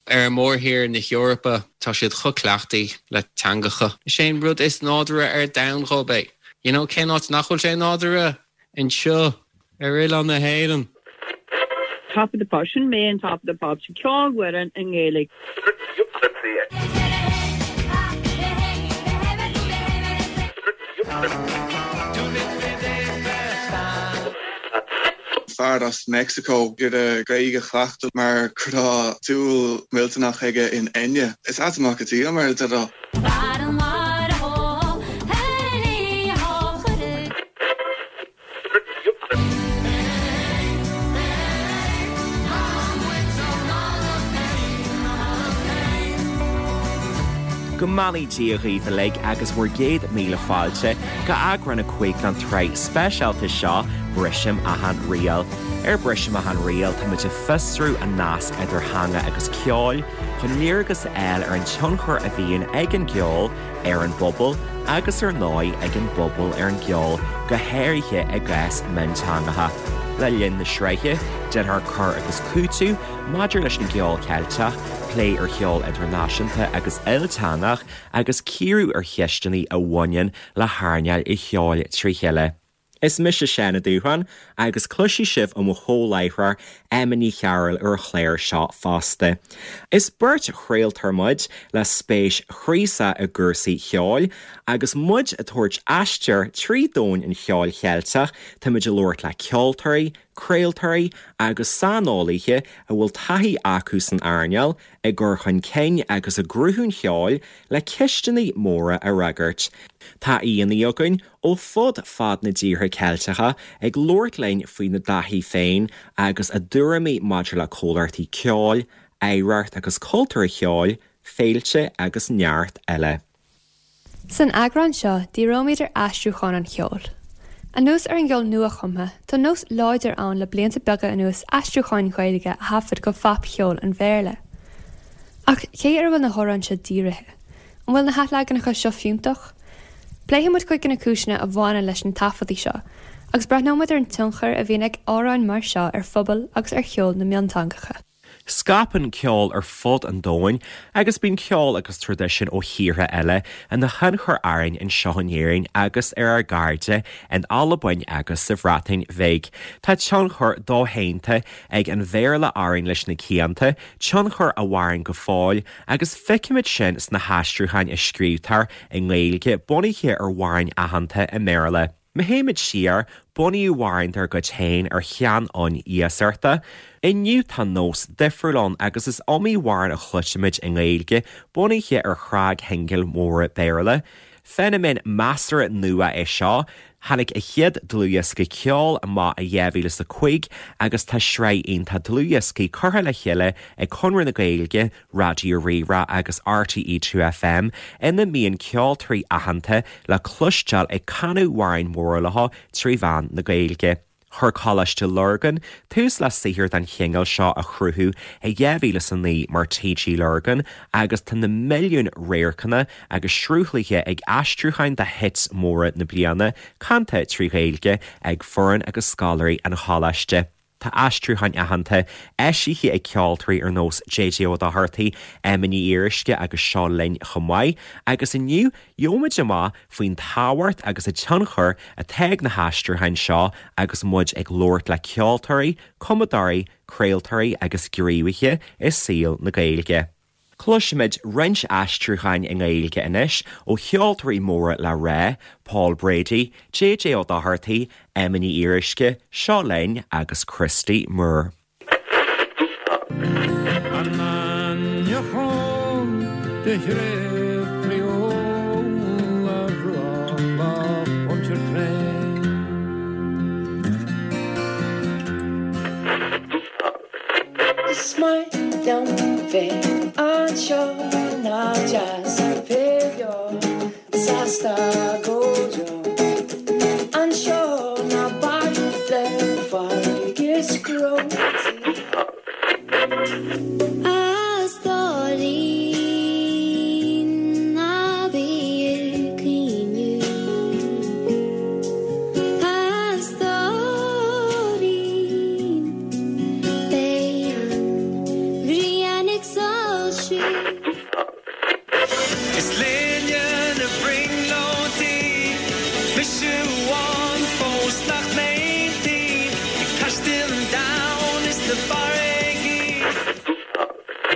Ar mhórthír na hEorpa, tá siad chomh cleachtaí le teangacha. Is é an rud is nádúrtha ar domhan dhóibh é. You know, cén áit nach bhfuil sé nádúrtha? Anseo, ar oileán na hÉireann. Top of the Pops, sin mé in Top of the Pops, ceolfhoireann i nGaeilge. Fear as Meicsiceo ag iarraidh Gaeilge a chleachtadh mar go raibh dúil mhillteanach aige in Enya. Is ait amach go dtí mar a déarfá. Go mbeannaí Dia dhaoibh uilig agus bhur gcéad míle fáilte go eagrán 5 den tsraith speisialta seo Brisim Achan Riail. Ar Brisim Achan Riail táimid ag fiosrú an nasc idir theanga agus ceol chun léargas a fháil ar an tionchar a bhíonn ag an gceol ar an bpobal agus ar ndóigh ag an bpobal ar an gceol, go háirithe i gcás mionteangacha. Le linn na sraithe, déanfar cur agus cúiteamh maidir leis an gceol Ceilteach, plé ar cheol idirnáisiúnta agus ilteangach agus cíoradh ar cheisteanna a bhaineann le hearnáil an cheoil trí chéile. Is mise Seán Ó Dúshláin agus cloisfidh sibh ó mo chomh-láithreoir Emma Ní Chearúil ar an chlár seo fosta. Is beirt chraoltóir muid le spéis chraosach i gcúrsaí cheoil agus muid ag tabhairt aistear trí domhan an cheoil Cheilteach táimid ag labhairt le ceoltóirí, craoltóirí agus saineolaithe a bhfuil taithí acu san earnáil, i gcur chun cinn agus i gcruthú an cheoil le ceisteanna móra a fhreagairt. Tá aíonna againn ó fud fad na dtíortha Ceilteacha ag labhairt linn faoina dtaithí féin agus a dtuairimí maidir le comhlachtaí ceoil, oidhreacht agus cultúr an cheoil, féilte agus neart eile. San eagrán seo, díreoimid ar aistriúcháin an cheoil. Anuas ar an gceol nua-chumtha, tá nós láidir ann le blianta beaga anuas aistriúcháin Ghaeilge a thaifead go phopcheol an Bhéarla. Ach cé ar a bhfuil na hamhráin seo dírithe? An bhfuil na hathleaganacha seo fiúntach? Pléifidh muid cuid de na cúiseanna a bhaineann leis na taifeadtaí seo, agus breathnóidh muid ar an tionchar a bhíonn ag amhráin mar seo ar phobail agus ar cheol na mionteangacha. Scaipeann ceol ar fud an domhain agus bíonn ceol agus traidisiún ó thíortha eile ina thionchar orainn anseo in Éirinn agus ar ár gcairde in Albain agus sa Bhreatain Bhig. Tá tionchar doshéanta ag an Bhéarla orainn leis na cianta, tionchar a mhaireann go fóill Agus feicimid sin sna haistriúcháin a scríobhtar i nGaeilge bunaithe ar amhráin aitheanta i mBéarla. Má théimid siar, bunaíodh amhráin dár gcuid féin ar sheanfhonn iasachta. Inniu tá nós difriúil ann agus is iomaí amhrán a chloisimid i nGaeilge bunaithe ar shnagshingil mhóra Béarla. Feiniméan measartha nua é seo. Tháinig a chéad dlúthdhiosca ceoil amach i 2005 agus tá sraith iontach dlúthdhioscaí curtha le chéile ag Conradh na Gaeilge, Raidió Rí-Rá agus RTÉ 2FM ina mbíonn ceoltóirí aitheanta le cloisteáil ag canadh amhráin mhóra leo trí mheán na Gaeilge. Chuir Coláiste Lurgan tús le saothar den chineál seo a chruthú i 2009 mar TG Lurgan agus tá na milliúin radharcanna agus sruthlaithe ag aistriúcháin de hits móra na bliana, canta trí Ghaeilge ag foireann agus scoláirí an choláiste. Tá aistriúcháin aitheanta eisithe ag ceoltóirí ar nós JJ Ó Dochartaigh, Emma Ní Fhíoruisce agus Seo Linn chomh maith agus inniu gheobhaimid amach faoin tábhacht agus an tionchar atá ag na haistriúcháin seo agus muid ag labhairt le ceoltóirí, cumadóirí, craoltóirí agus gníomhaithe i saol na Gaeilge. Cloisfimid roinnt aistriúcháin i nGaeilge anois ó cheoltóirí móra le rá, Paul Brady, JJ Ó Dochartaigh, Emma Ní Fhíoruisce, Seo Linn agus Christy Moore. Is maith liom bheith anseo nach deas bheith beo sásta go deo anseo ná bac le farraige is cró. A stóirín ná bí ag caoineadh A stóirín beidh an ghrian ag soilsiú.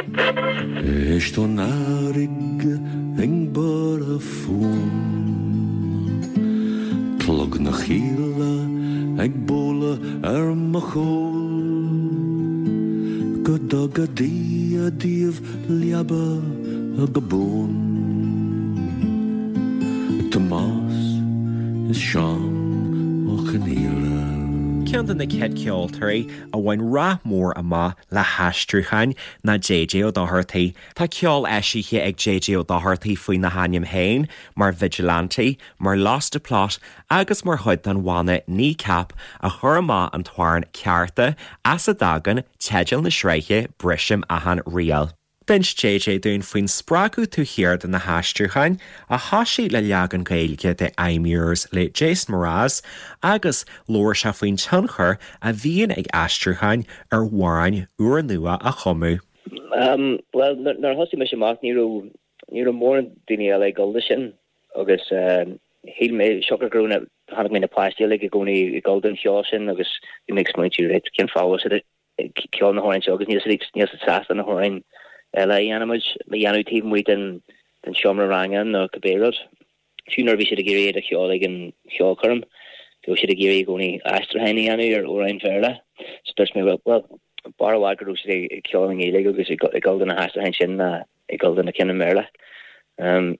Éist ón fharraige ag borradh fúm, Clog na chíle ag bualadh ar mo chúl, Go dtuga Dia daoibh leaba go buan. Tomás is Seán Ó Conghaile. Ceann de na chéad cheoltóirí a bhain rath mór amach le haistriúcháin ná JJ Ó Dochartaigh. Tá ceol eisithe ag JJ Ó Dochartaigh faoina hainm féin, mar Vigilante, mar Lost the Plot agus mar chuid den bhanna Kneecap a chuir amach an t-amhrán Cearta, as a dtagann teideal na sraithe Brisim Achan Riail. D'inis JJ dúinn faoin spreagadh taobh thiar de na haistriúcháin, a thosaigh le leagan Gaeilge de I'm Yours le Jason Mraz, agus labhair sé faoin tionchar a bhíonn ag aistriúcháin ar amhráin úrnua a chumadh. Bhuel, nuair a thosaigh mise amach ní raibh, ní raibh mórán daoine eile ag dul do sin agus shíl mé, siocair go raibh na, chonaic mé na páistí uilig i gcónaí ag dul don cheol sin agus bhí mé ag smaointiú, right, cén fáth a bhfuil siad ag ceol na hamhráin seo agus níl siad níl siad sásta na hamhráin eile a dhéanamh a dhéanamh taobh amuigh den den seomra ranga nó cibé rud. Fiú nuair a bhí siad ag iarraidh iad a cheol ag an cheolchoirm, bhíodh siad ag iarraidh i gcónaí aistriúcháin a dhéanamh ar amhráin Bhéarla. So dúirt mé, well, b'fhearr i bhfad go raibh siad ag ceol i nGaeilge agus ag dul do na haistriúcháin sin ná ag dul do na cinn i mBéarla.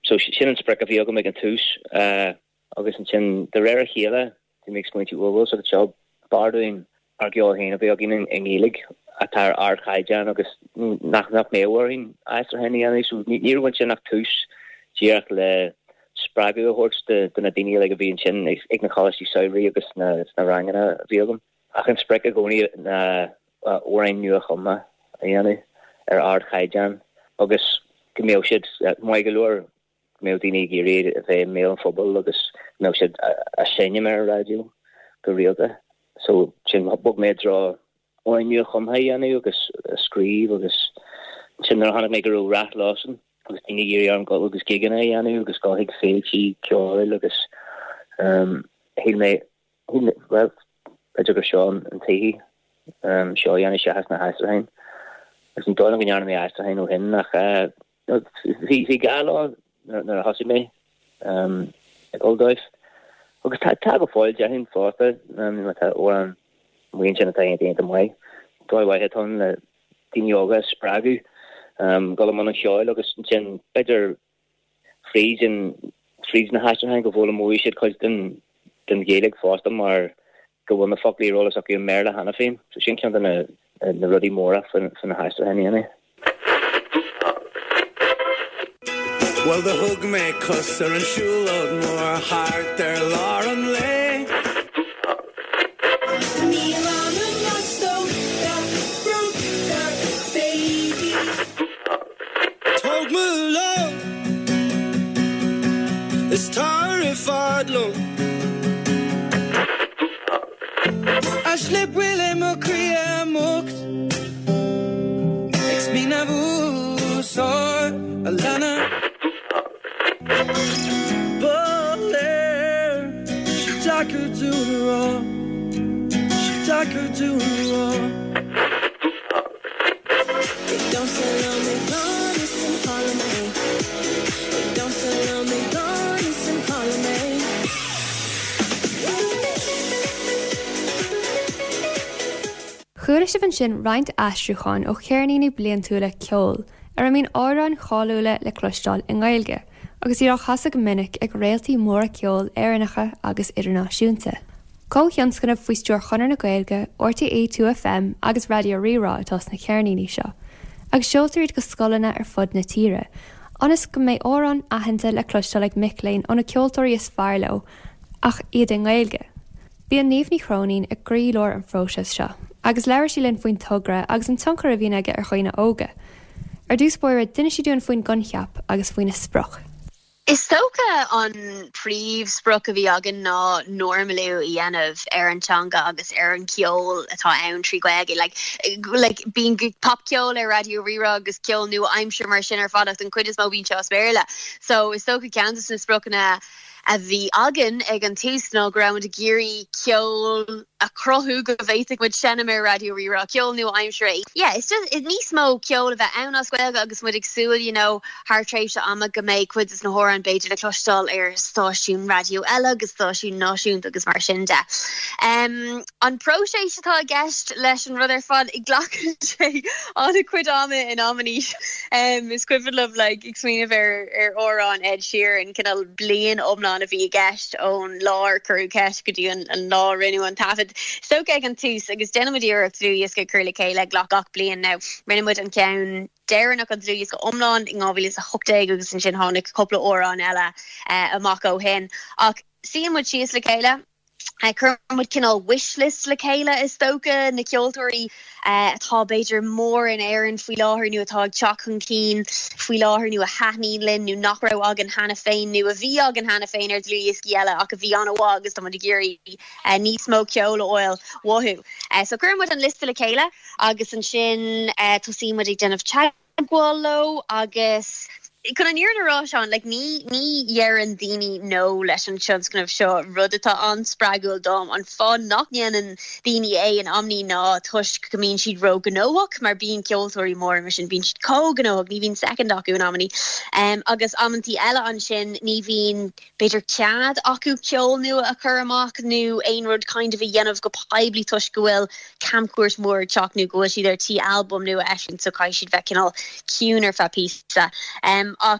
So sin an sprioc a bhí agam ag an tús. Agus ansin, de réir a chéile, bhí mé ag smaointiú, bhuel, bhfuil a fhios agat seo, b'fhearr dúinn ár gceol féin a bheith againn i nGaeilge atá ar ardchaighdeán agus nach nach mbeadh orainn aistriúcháin a dhéanamh. So ní raibh ansin ach tús díreach le spreagadh a thabhairt do do na daoine uilig a bhí ansin ag na coláistí samhraidh agus sna sna ranganna a bhí agam. Ach an sprioc i gcónaí ná amhráin nua-chumtha a dhéanamh ar ardchaighdeán agus go mbeadh siad maith go leor go mbeadh daoine ag iarraidh a bheith i mbéal an phobail agus go mbeadh siad á seinm ar an raidió go rialta. So sin, bhog mé i dtreo amhráin nua-chumtha a dhéanamh agus a scríobh agus ansin nuair a chonaic mé go raibh rath leosan agus daoine ag iarraidh orm dul agus gigeanna a dhéanamh agus dul chuig féiltí ceoil agus shíl mé, bhuel, b'fhéidir gur seo an tslí seo a dhéanamh seachas na haistriúcháin. Agus ní dóigh liom go ndearna mé aistriúcháin ó shin ach Bhí gá leo nuair a thosaigh mé ag dul dóibh. Agus tá go fóill, déarfainn fosta, má tá amhrán amuigh ansin atá iontach iontach maith. Dóigh mhaith atá ann le daoine óga a spreagadh dul i mbun an cheoil agus ansin b'fhéidir fríd an fríd na haistriúcháin go bhfoghlaimeoidh siad cuid den den Ghaeilge fosta mar go bhfuil na foclaí ar eolas acu i mBéarla cheana féin. So sin ceann de na na rudaí móra faoi na haistriúcháin a dhéanamh. Bhuel do thug mé cos ar an siúlóid mhór thart ar lár an lae. Níl anam as brúnn baby. Tóg mo lámh is tar i bhfad liom. A slip bhfuil i mo chroí múchta ag smaoineamh úsáid a leanadh. Ba léir sé deacair dúinn a rá, sé deacair dúinn a rá. Ag damhsa liom i ngan fhios an cá liom é. Ag damhsa liom i ngan fhios an cá liom é. Chuala sibh ansin roinnt aistriúcháin ó cheirníní bliantúla ceoil ar a mbíonn amhráin cháiliúla le cloisteáil i nGaeilge agus iad á chasadh go minic ag réaltaí móra ceoil Éireannacha agus idirnáisiúnta. Comhthionscnamh faoi stiúir Chonradh na Gaeilge, RTÉ 2FM agus Raidió Rí-Rá atá sna ceirníní seo, agus seoltar iad go scoileanna ar fud na tíre, ionas go mbeidh amhráin aitheanta le cloisteáil ag mic léinn ó na ceoltóirí is fearr leo, ach iad i nGaeilge. Bíonn Niamh Ní Chróinín i gcroílár an phróisis seo, agus labhair sí linn faoin togra agus an tionchar a bhíonn aige ar dhaoine óga. Ar dtús báire, d'inis sí dúinn faoin gcoincheap agus faoina sprioc. Is dócha an príomhsprioc a bhí againn ná normalú a dhéanamh ar an teanga agus ar an cheol atá ann trí Ghaeilge. Like, like, bíonn popcheol ar Raidió Rí-Rá agus ceol nua-aimseartha mar sin ar fad ach den chuid is mó bíonn sé as Béarla. So is dócha ceann de na spriocanna. a bhí againn ag an tús ná go raibh muid ag iarraidh ceol a chruthú go bhféadfadh muid seinm ar Raidió Rí-Rá, ceol nua-aimseartha. Yeah, it's just níos mó ceol a bheith ann as Gaeilge agus muid ag súil, you know, thar tréimhse ama go mbeidh cuid de na hamhráin b'fhéidir le cloisteáil ar stáisiún raidió eile agus stáisiún náisiúnta agus mar sin de. An próiseas atá i gceist leis an rud ar fad, glacann sé an-chuid ama in amannaí. Is cuimhin liom like ag smaoineamh ar ar amhrán Ed Sheeran, cineál bliain iomlán a bhí i gceist ón lá ar cuireadh ceist go dtí an lá a rinneadh an taifead. Is dócha ag an tús agus déanann muid iarracht dlúthdhiosca a chur le chéile gach bliain now. Rinne muid an ceann deireanach an dlúthdhiosca iomlán in 2018 agus ansin tháinig cúpla amhrán eile amach ó shin. Ach suíonn muid síos le chéile, cuireann muid cineál wish list le chéile is dócha, na ceoltóirí atá b'fhéidir mór in Éirinn faoi láthair nó atá ag teacht chun cinn faoi láthair nó a thaitníonn linn nó nach raibh againn cheana féin nó a bhí againn cheana féin ar dlúthdhioscaí eile ach a bhí an-mhaith agus tá muid ag iarraidh níos mó ceoil a fháil uathu. So cuireann muid an liosta le chéile. Agus ansin tosaíonn muid ag déanamh teagmháil leo agus chun an fhírinne a rá, Seán, like ní, ní dheireann daoine no leis an tionscnamh seo, rud atá an-spreagúil dom. An fáth nach ndéanann daoine é in amannaí ná toisc go mbíonn siad ró-ghnóthach, mar bíonn ceoltóirí móra mar sin, bíonn siad chomh gnóthach, ní bhíonn soicind acu in amannaí. Agus amantaí eile ansin ní bhíonn b'fhéidir cead acu ceol nua a chur amach nó aon rud kind of a dhéanamh go poiblí toisc go bhfuil camchuairt mhór ag teacht nó go bhfuil siad ar tí albam nua a eisiúint so caithfidh siad bheith cineál ciúin ar feadh píosa. Ach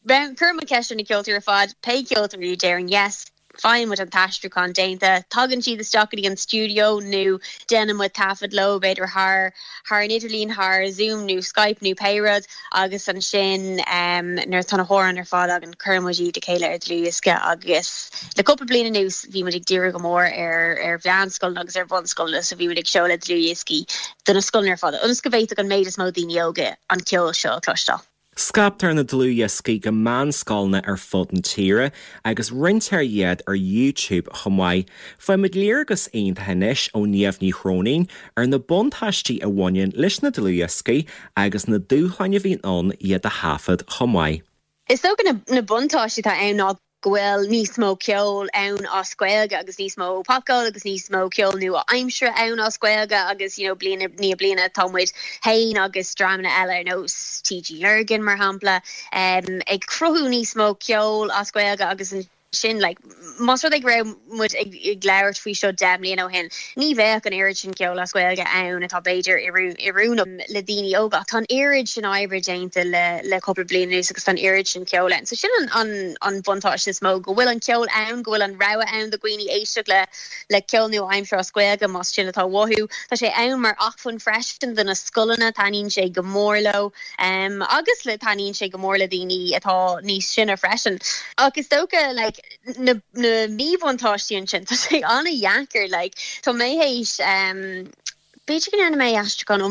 cuireann muid ceist ar na ceoltóirí ar fad, pé ceoltóirí a deireann yes, faigheann muid an t-aistriúchán déanta, tagann siad isteach go dtí an stiúideo nó déanann muid taifead leo b'fhéidir thar thar an idirlíon, thar Zoom nó Skype nó pé rud agus ansin nuair atá na hamhráin ar fad againn cuireann muid iad le chéile ar dlúthdhiosca agus le cúpla bliain anuas bhí muid ag díriú go mór ar ar mheánscoileanna agus ar bhunscoileanna so bhí muid ag seoladh dlúthdhioscaí do na scoileanna ar fad ionas go bhféadfadh an méid is mó daoine óga an ceol seo a chloisteáil. Scaiptear na dlúthdhioscaí go meánscoileanna ar fud na tíre agus roinntear iad ar YouTube chomh maith. Faighimid léargas iontach anois ó Niamh Ní Chróinín ar na buntáistí a bhaineann leis na dlúthdhioscaí agus na dúshláin a bhíonn ann iad a thaifead chomh maith. Is dócha na buntáistí atá ann ná go bhfuil níos mó ceoil ann as Gaeilge agus níos mó popcheoil agus níos mó ceol nua-aimseartha ann as Gaeilge agus you know bliain i ndiaidh bliana tá muid féin agus dreamanna eile ar nós TG Lurgan mar shampla ag cruthú níos mó ceoil as Gaeilge agus ansin like más rud é go raibh muid ag labhairt faoi seo 10 mbliana ó shin, ní bheadh an oiread sin ceoil as Gaeilge ann atá b'fhéidir oiriúnach le daoine óga. Ach tá an oiread sin oibre déanta le cúpla bliain anuas agus tá an oiread sin ceoil ann. So sin an buntáiste is mó, go bhfuil an ceol ann, go bhfuil an rogha ann do dhaoine éisteacht le le ceol nua-aimseartha as Gaeilge más sin atá uathu. Tá sé ann mar acmhainn freisin do na scoileanna, taitníonn sé go mór leo agus le taitníonn sé go mór le daoine atá níos sine freisin. Ach is dócha like, na míbhuntáistí ansin, tá sé an-dheacair, like, tá mé théis, b'fhéidir go ndearna mé aistriúchán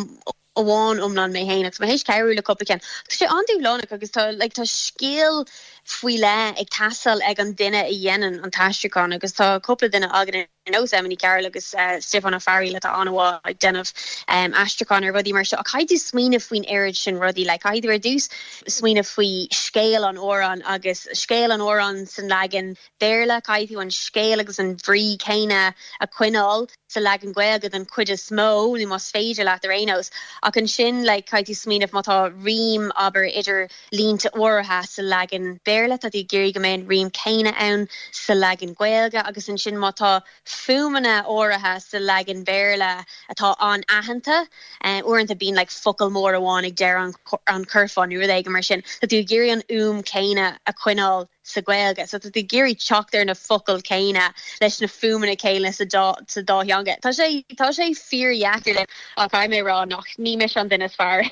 amháin iomlán mé féin agus tá mé théis cabhrú le cúpla ceann. Tá sé an-dúshlánach agus tá, like, tá scil faoi leith ag teastáil ag an duine a dhéanann an t-aistriúchán agus tá cúpla duine againn ar nós Emma Ní Chearúil agus Stiofán Ó Fearghaíl atá an-mhaith ag déanamh aistriúchán ar rudaí mar seo. Ach caithfidh tú smaoineamh faoin oiread sin rudaí, like, caithfidh tú ar dtús smaoineamh faoi scéal an amhráin agus scéal an amhráin san leagan Béarla, caithfidh tú an scéal agus an bhrí céanna a choinneáil sa leagan Gaeilge den chuid is mó, nó más féidir leat ar aon nós. Ach ansin, like, caithfidh tú smaoineamh má tá rím, abair, idir línte áirithe sa leagan Béarla, tá tú ag iarraidh go mbeidh an rím céanna ann sa leagan Gaeilge agus ansin má tá fuaimeanna áirithe sa leagan Béarla atá an-aitheanta. Uaireanta bíonn like focal mór amháin ag deireadh an churfá nó rud éigin mar sin. Tá tú ag iarraidh an fhuaim chéanna a choinneáil sa Ghaeilge. So tá tú ag iarraidh teacht ar na focail chéanna leis na fuaimeanna céanna sa dá sa dá theanga. Tá sé tá sé fíordheacair ach caithfidh mé a rá nach ní mise an duine is fearr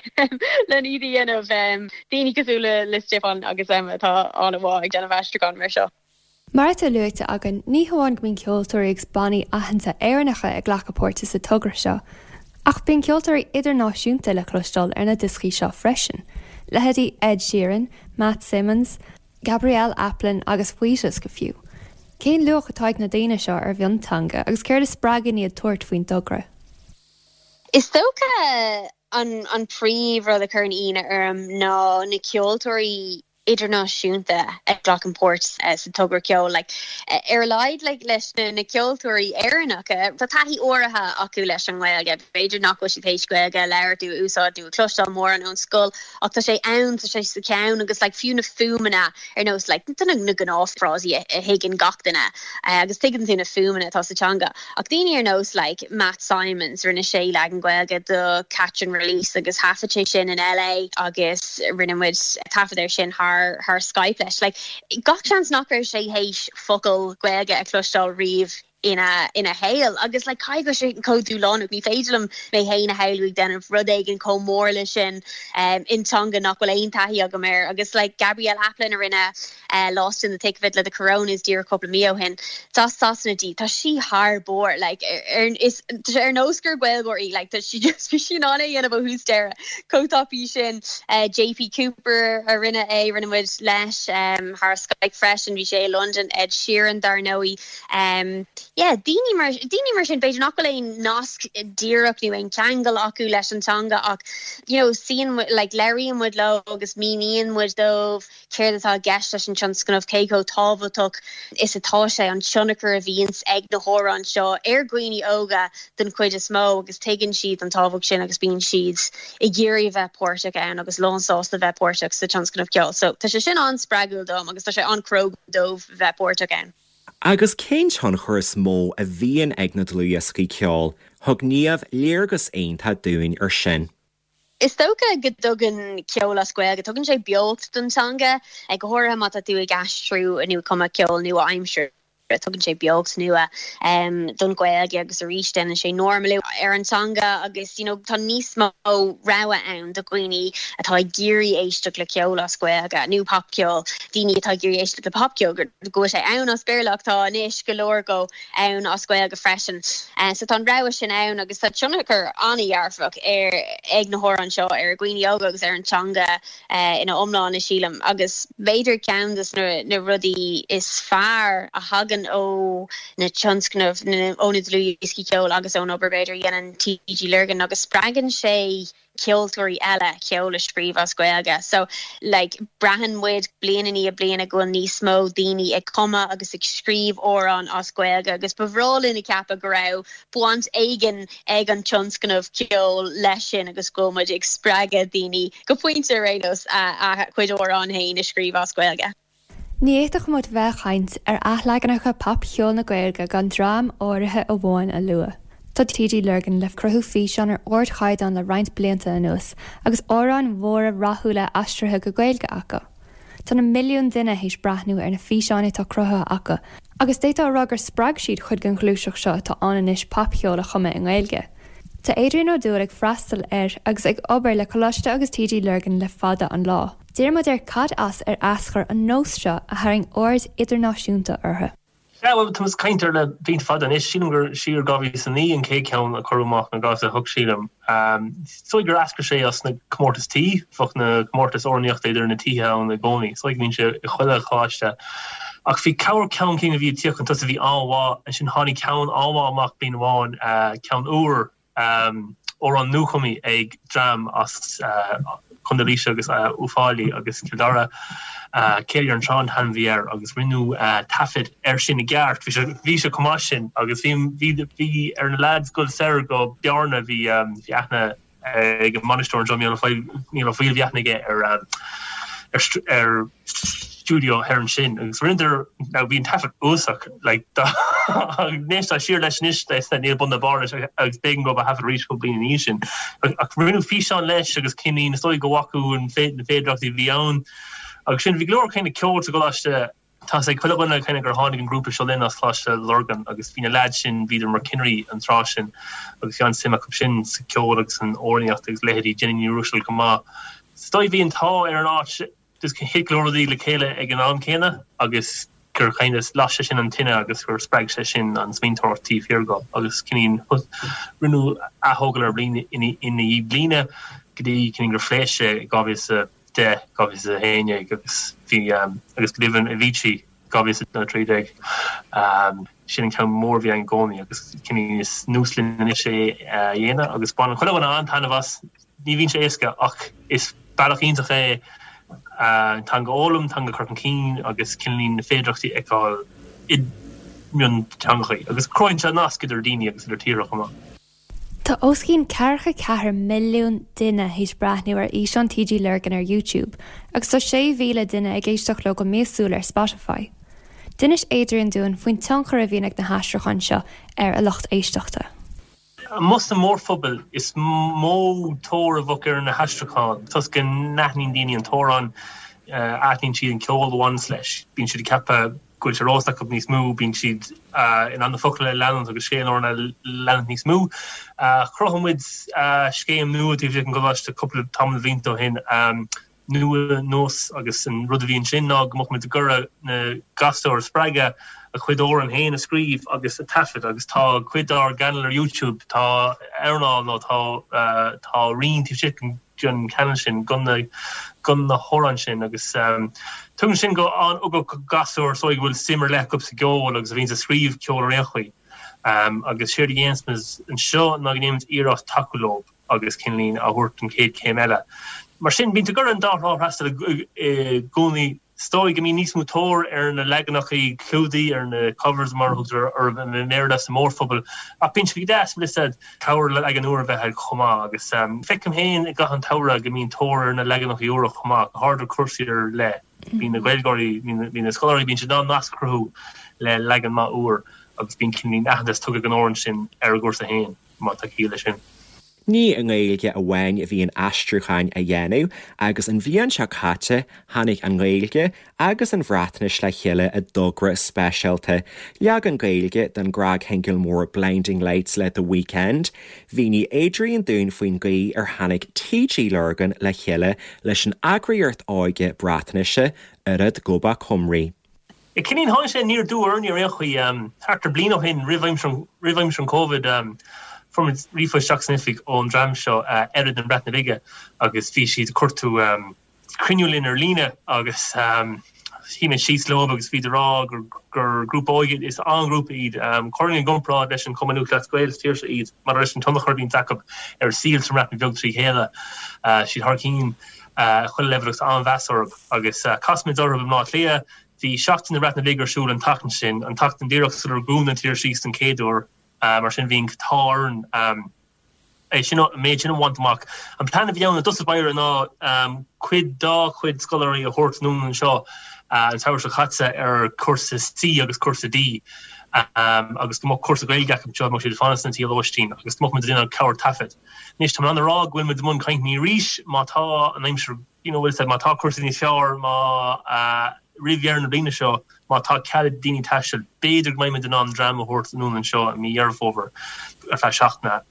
len iad a dhéanamh. Daoine cosúil le le Stiofán agus Emma atá an-mhaith ag déanamh aistriúchán mar seo. Mar atá luaite againn, ní hamháin go mbíonn ceoltóirí agus bannaí aitheanta Éireannacha ag glacadh páirte sa togra seo, ach bíonn ceoltóirí idirnáisiúnta le cloisteáil ar na dioscaí seo freisin, leithéidí Ed Sheeran, Matt Simons, Gabrielle Aplin agus Wheatus go fiú. Cén luach atá ag na daoine seo ar mhionteanga agus céard a spreagann iad tabhairt faoin dtogra? Is dócha an príomh rud a chuireann ionadh orm ná na ceoltóirí. idirnáisiúnta a ghlacann páirt sa togra ceoil. Like, ar a laghad like, leis na, na ceoltóirí Éireannacha, tá taithí áirithe acu leis an nGaeilge. B'fhéidir nach bhfuil siad théis Gaeilge a labhairt nó a úsáid nó a chloisteáil mórán ón scoil ach tá sé ann, tá sé sa cheann agus like, fiú na fuaimeanna ar nós like, tá na, na gnáthfhrásaí a, a thuigeann gach duine agus tuigeann tú na fuaimeanna atá sa teanga. Ach daoine ar nós like Matt Simons, rinne sé leagan Gaeilge do Catch and Release agus thaifead sé sin in LA agus rinne muid taifead air sin thar thar Skype leis. Like gach seans nach raibh sé théis focal Gaeilge a chloisteáil riamh ina ina shaol agus like caithfidh go bhfuil sé chomh dúshlánach, ní féidir liom mé féin a shamhlú ag déanamh rud éigin chomh mór le sin um in teanga nach bhfuil aon taithí agam air agus like Gabrielle Aplin a rinne Lost in the Thick of It le The Coronas díreach cúpla mí ó shin. Is as Sasana di. Tá sí thar barr. Like, ar, is, tá sé ar nós gur Gaeilgeoir í. Like, tá sí just, bhí sí in ann é a dhéanamh ó thús deireadh. Chomh tapaidh sin. JP Cooper a rinne é, rinne muid leis um, thar Skype freisin. Bhí sé i Londain. Ed Sheeran, dar ndóigh. Um, yeah, daoine mar, daoine mar sin, b'fhéidir nach bhfuil aon nasc díreach nó aon cheangal acu leis an teanga ach, you know, suíonn muid, like, labhraíonn muid leo agus míníonn muid dóibh céard atá i gceist leis an tionscnamh, cé chomh tábhachtach is atá sé, an tionchar a bhíonns ag na hamhráin seo ar dhaoine óga den chuid is mó agus tuigeann siad an tábhacht sin agus bíonn siad ag iarraidh a bheith páirteach ann agus lánsásta a bheith páirteach sa tionscnamh ceoil. So tá sé sin an-spreagúil dom agus tá sé an-chróga dóibh bheith páirteach ann. Agus cén tionchar is mó a bhíonn ag na dlúthdhioscaí ceoil? Thug Niamh léargas iontach dúinn ar sin. Is dócha go dtugann ceol as Gaeilge, tugann sé beocht don teanga, go háirithe má tá tú ag aistriú nó ag cumadh ceol nua-aimseartha, tugann sé beocht nua don Ghaeilge agus arís déanann sé normalú ar an teanga agus you know tá níos mó rogha ann do dhaoine atá ag iarraidh éisteacht le ceol as Gaeilge nó popcheol, daoine atá ag iarraidh éisteacht le popcheol, go bhfuil sé ann as Béarla ach tá anois go leor dhó. ann as Gaeilge freisin. So tá an rogha sin ann agus tá tionchar an-dhearfach ar ag na hamhráin seo ar dhaoine óga agus ar an teanga ina iomláine sílim. Agus b'fhéidir ceann de na rudaí is fearr a thagann ó na tionscnaimh, ó na dlúthdhioscaí ceoil agus ón obair b'fhéidir a dhéanann TG Lurgan ná go spreagann sé ceoltóirí eile ceol a scríobh as Gaeilge. So, like, braitheann muid bliain i ndiaidh bliana go bhfuil níos mó daoine ag cumadh agus ag scríobh amhrán as Gaeilge agus ba bhreá linn a cheapadh go raibh baint éigin ag an tionscnamh ceoil leis sin agus go bhfuil muid ag spreagadh daoine, go pointe ar aon nós, a gcuid amhrán féin a scríobh as Gaeilge. Ní fhéadfadh muid bheith ag caint ar athleaganacha popcheoil na Gaeilge gan dream áirithe amháin a lua. Tá TG Lurgan le cruthú físeán ar ardchaighdeán le roinnt blianta anuas agus amhráin mhóra rathúla aistrithe go Gaeilge acu. Tá na milliúin duine théis breathnú ar na físeáin atá cruthaithe acu agus d'fhéadfá a rá gur spreag siad cuid den ghluaiseacht seo atá ann anois popcheol a chumadh i nGaeilge. Tá Adrian Ó Dúill ag freastal ar agus ag obair le Coláiste agus TG Lurgan le fada an lá. D'iarr muid air cad as ar eascair an nós seo a tharraing aird idirnáisiúnta orthu. Sea, bhuel, tá muid ag caint air le blianta fada anois. Sílim gur siar 2009 an chéad cheann a cuireadh amach, nó 2008 sílim. Is dóigh gur eascair sé as na comórtais tí. Bheadh na comórtais amhránaíochta idir na tithe ann i gcónaí. Is dóigh go mbíonn sé i chuile choláiste. Ach bhí corr ceann cinn a bhí ag tíocht chun tosaigh a bhí an-mhaith. Ansin tháinig ceann an-mhaith amach bliain amháin, ceann úr, amhrán nuachumtha ag dream as Contae Laoise agus Uíbh Fhailí agus Cill Dara, Céilí ar an Trá an t-ainm a bhí air agus rinneadh taifead air sin i gceart. Bhí sé bhí sé chomh maith sin agus bhí bhí bhí ar na leaids dul soir go Bearna bhí bhí aithne ag an mbainisteoir anseo Mícheál Ó Foighil Mícheál Ó Foighil bhí aithne aige ar ar ar stiúideo thoir ansin agus rinneadar now bhí an taifead uafásach like dá n-éistfeá siar leis anois níl bun ná barr leis agus b'éigean dóibh a thaifead arís cúpla bliain ina dhiaidh sin ach rinneadh físeán leis agus cineál is dóigh go bhfaca an na féidearthachtaí a bhí ann agus sin bhí go leor kind of ceol sa gcoláiste Tá a fhios ag chuile dhuine kind of gur tháinig an grúpa Seo Linn as Coláiste Lurgan agus bhí na leaids sin, bhíodar mar cinnirí an tráth sin agus bhí an-suim acu sin sa ceol agus san amhránaíocht agus leithéidí Jenny Ní Ruiséil chomh maith. Is dóigh bhí an t-ádh ar an áit just thit go leor rudaí le chéile ag an am céanna agus gur kind of las sé sin an tine agus gur spreag sé sin an smaointeoireacht taobh thiar de agus cineál rinneadh aththógáil air bliain i ndiaidh bliana go dtí cineál gur phléasc sé i 2000 10, 2011 agus bhí agus go deimhin Avicii 2013. Sin an ceann mór a bhí ann i gcónaí agus cineál is nós linn anois é a dhéanamh agus baineann chuile dhuine an-taitneamh as. Ní bhíonn sé éasca ach is bealach iontach é. An teanga a fhoghlaim, an teanga a chur chun cinn agus cineáilín na féidearthachtaí a fheiceáil i mionteangachaí. Agus cruthaíonn sé nasc idir daoine agus idir tíortha chomh maith. Tá os cionn 44 milliún duine théis breathnú ar fhíseáin TG Lurgan ar YouTube agus tá 6,000 duine ag éisteacht leo go míosúil ar Spotify. D'inis Adrian dúinn faoin tionchar a bhíonn ag na haistriúcháin seo ar a lucht éisteachta. Amuigh sa mórphobal is mó tóir a bheadh ar na haistriúcháin toisc go n-aithníonn daoine an t-amhrán, aithníonn siad an ceol a bhaineas leis, bíonn siad ag ceapadh go bhfuil sé ar eolas acu níos mó, bíonn siad in ann na focail a leanúint agus scéal an amhráin a leanúint níos mó. Chruthaigh muid scéim nua taobh istigh den gcoláiste cúpla tamall de bhlianta ó shin, Nua Nós, agus an rud a bhí ansin ná go mbeadh muid ag iarraidh na gasúir a spreagadh a gcuid amhrán féin a scríobh agus a taifead agus tá cuid dár gcainéal ar YouTube, tá amhrán nó tá tá roinn taobh istigh den den chainéal sin go na go na hamhráin sin agus tugann sin go an-ugach go gasúir is dóigh go bhfuil suim ar leith acu sa gceol agus a bhíonns ag scríobh ceol ar aon chaoi agus séard a dhéanas muid anseo ná go ndéanaimid iarracht tacú leo agus cineáilín a thabhairt don chéad chéim eile. Mar sin bíonn tú ag iarraidh an dá thrá a fhreastal i gcónaí. Is dóigh go mbíonn níos mó tóir ar na leaganachaí clúdaigh, ar na covers mar a thugtar orthu i mBéarla sa mórphobal, ach bíonn sé go deas, bhfuil 'fhios a'd, cabhair le leagan úr a bheith agat chomh maith. Agus feicim féin i gcaitheamh an tsamhraidh go mbíonn tóir ar na leaganachaí úra chomh maith, go háirid ar cúrsaí ar leith. Bíonn na Gaeilgeoirí, bíonn na scoláirí, bíonn siad in ann nasc a chruthú le leagan maith úr agus bíonn cineáilín aitheantas tugtha don amhrán sin ar a gcúrsa féin, má tá ciall leis sin. Ní i nGaeilge amháin a bhíonn aistriúcháin á dhéanamh agus an bhliain seo caite tháinig an Ghaeilge agus an Bhreatnais le chéile i dtogra speisialta, leagan Gaeilge den gcnagshingil mór Blinding Lights le The Weeknd. Mhínigh Adrian dúinn faoin gcaoi ar tháinig TG Lurgan le chéile leis an eagraíocht óige Breatnaise, Urdd Gobaith Cymru. Cineáilín tháinig sé aniar aduaidh orainn ar aon chaoi. Thart ar bliain ó shin, roimh aimsir roimh aimsir an Covid, fuair muid ríomhphost isteach san oifig ón dream seo, Urdd na Breataine Bige, agus bhí siad ag cuartú cruinniú linn ar líne agus shuigh muid síos leo agus bhíodar ag rá gur gur grúpa óige, is an-ghrúpa iad. Chuirfinn i gcomparáid leis an Chumann Lúthchleas Gael sa tír seo iad, maidir leis an tionchar a bhíonns acu ar an saol sa mBreatain Bheag trí chéile. Siad thar cinn chuile leibhéal agus an-mheas orthu agus chas muid orthu i mBleá Cliath. Bhí Seachtain na Breataine Bige ar siúl an tseachtain sin, an tseachtain díreach sular dhún an tír síos don chéad uair, mar sin bhí an t-ádh orainn é sin, an méid sin a bhaint amach. An plean a bhí ann i dtosach báire ná cuid dá chuid scoláirí a thabhairt anonn anseo an samhradh seo caite ar chúrsa C agus cúrsa D agus go mbeadh cúrsa Gaeilge acu anseo, mbeadh siad ag fanacht sna tithe lóistín agus go mbeadh muid ag déanamh cabhair taifead. Anois tá mé in ann a rá go bhfuil muid i mbun cainteanna arís má tá an aimsir you know, bhfuil 'fhios a'd, má tá cúrsaí níos fearr, má, roimh dheireadh na bliana seo, má tá cead ag daoine taisteal, b'fhéidir go mbeidh muid in ann dream a thabhairt anonn anseo i mí Dheireadh Fómhair ar feadh seachtaine.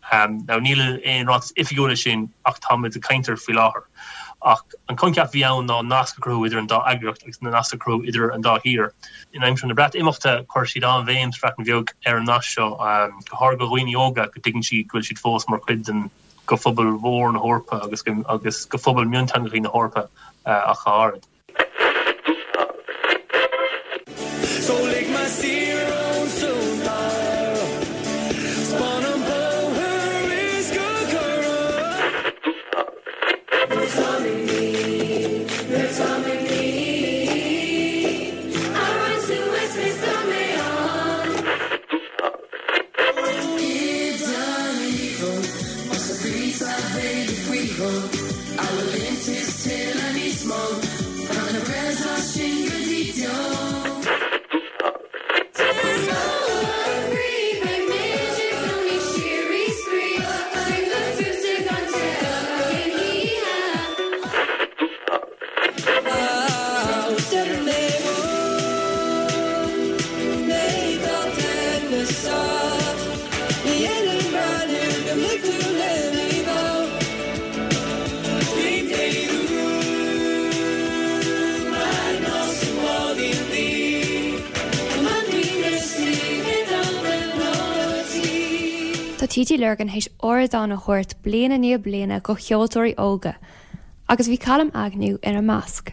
Now níl aon ráiteas oifigiúil leis sin ach tá muid ag caint air faoi láthair. Ach an coincheap a bhí ann ná nasc a chruthú idir an dá eagraíocht agus nasc a chruthú idir an dá thír. In aimsir na Breatimeachta, chuir siad an-bhéim sa Bhreatain Bheag ar an nasc seo, go háirithe do dhaoine óga, go dtuigeann siad go bhfuil siad fós mar chuid den go phobal mhór na hEorpa agus agus go phobal mionteangacha na hEorpa ach go háirid. Tá TG Lurgan théis ardán a thabhairt bliain i ndiaidh bliana go cheoltóirí óga agus bhí Calum Agnew ina measc.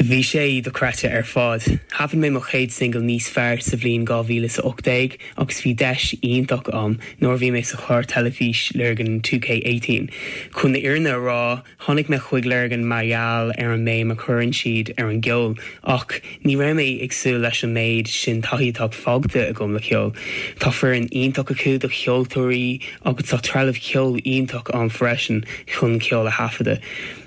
Bhí sé dochreidte ar fad. Thaifead mé mo chéad singil Níos Fearr sa bhliain 2018 agus bhí deis iontach a'm nuair a bhí mé sa chlár teilifís Lurgan 2K18. Chun na fhírinne a rá, tháinig mé chuig Lurgan mar gheall ar an mbéim a chuireann siad ar an gceol ach ní raibh mé ag súil leis an méid sin taithí atá faighte agam le ceol. Tá foireann iontach acu do cheoltóirí agus tá trealamh ceoil iontach ann freisin chun ceol a thaifeadadh.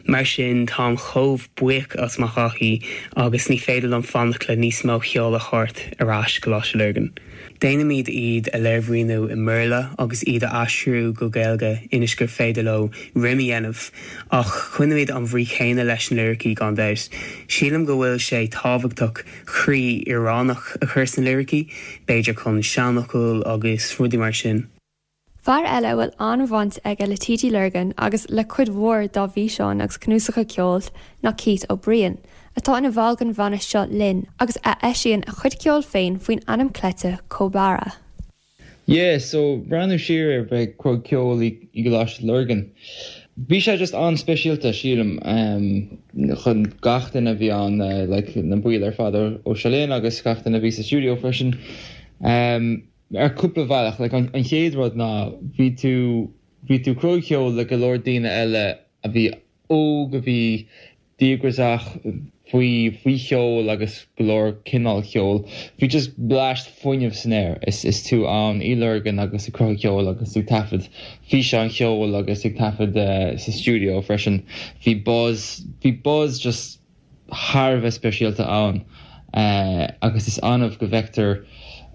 Mar sin, táim chomh buíoch as mo thaithí agus ní féidir liom fanacht le níos mó ceoil a thabhairt ar ais Coláiste Lurgan. Déanaimid iad a léirmhíniú i mBéarla agus iad a aistriú go Gaeilge ionas gur féidir leo rím a dhéanamh, ach coinnímid an bhrí chéanna leis na liricí gan dabht. Sílim go bhfuil sé tábhachtach croí Éireannach a chur sna liricí, b'fhéidir chun seanfhocail agus rudaí mar sin. Fear eile a bhfuil an-bhaint aige le TG Lurgan agus le cuid mhór dá bhfíseáin agus cnuasacha ceoil ná Keith Ó Briain, atá ina bhall den bhanna Seo Linn agus a eisíonn a chuid ceoil féin faoin ainm cleite Cobara. Yeah, so breathnú siar ar bheith ag cruthú ceoil i gColáiste Lurgan, bhí sé just an-speisialta sílim chun gach duine a bhí ann, like na baill ar fad ó Seo Linn agus gach duine a bhí sa stiúideo freisin. Ar cúpla bhealach, like an chéad rud ná bhí tú, bhí tú ag cruthú ceoil le go leor daoine eile a bhí óg, a bhí díograiseach faoi, faoi cheol agus go leor cineál ceoil. Bhí just bleaist fuinnimh san aer is, is tú ann i Lurgan agus ag cruthú ceoil agus ag taifead físeáin cheoil agus ag taifead sa stiúideo freisin. Bhí buzz, bhí buzz just thar a bheith speisialta ann agus is annamh go bhfeictear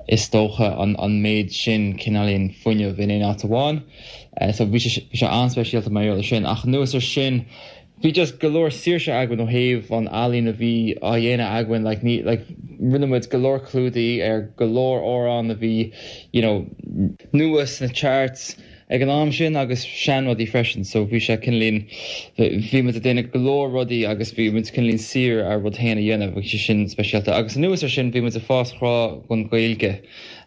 is dócha an méid sin cineáilín fuinnimh in aon áit amháin. So bhí sé bhí sé an-speisialta mar gheall ar sin. Ach anuas ar sin bhí just go leor saoirse againn ó thaobh an ealaín a bhí á dhéanamh againn like ní like rinne muid go leor clúdaigh ar go leor amhrán a bhí you know nua sna charts ag an am sin agus seanrudaí freisin so bhí sé cineáilín, bhí muid ag déanamh go leor rudaí agus bhí muid cineáilín saor ár rud féin a dhéanamh, bhí sé sin speisialta. Agus anuas ar sin bhí muid ag fás grá don Ghaeilge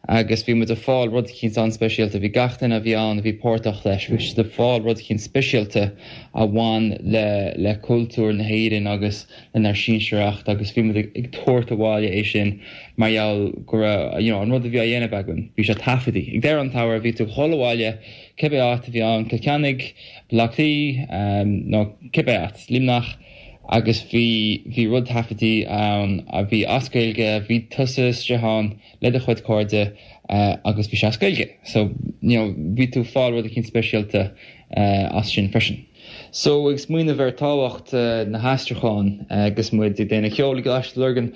agus bhí muid ag fáil rud eicínt an-speisialta, bhí gach duine a bhí ann a bhí páirteach leis, bhí siad ag fáil rud eicínt speisialta a bhain le le cultúr na hÉireann agus lenár sinsearacht agus bhí muid ag tabhairt abhaile é sin mar gheall go raibh, you know, an rud a bhí á dhéanamh againn, bhí sé taifeadtaí. Ag deireadh an tsamhraidh, bhí tú ag dhul abhaile, cibé áit a bhí ann, Cill Chainnigh, Baile Átha Cliath, nó cibé áit, Luimneach, agus bhí, bhí rud taifeadtaí ann a bhí as Gaeilge, bhí tusa istigh ann le do chuid cairde agus bhí sé as Gaeilge. So, you know, bhí tú ag fáil rud eicínt speisialta as sin freisin. So, ag smaoineamh ar tábhacht na haistriúcháin agus muid ag déanamh ceoil i gColáiste Lurgan,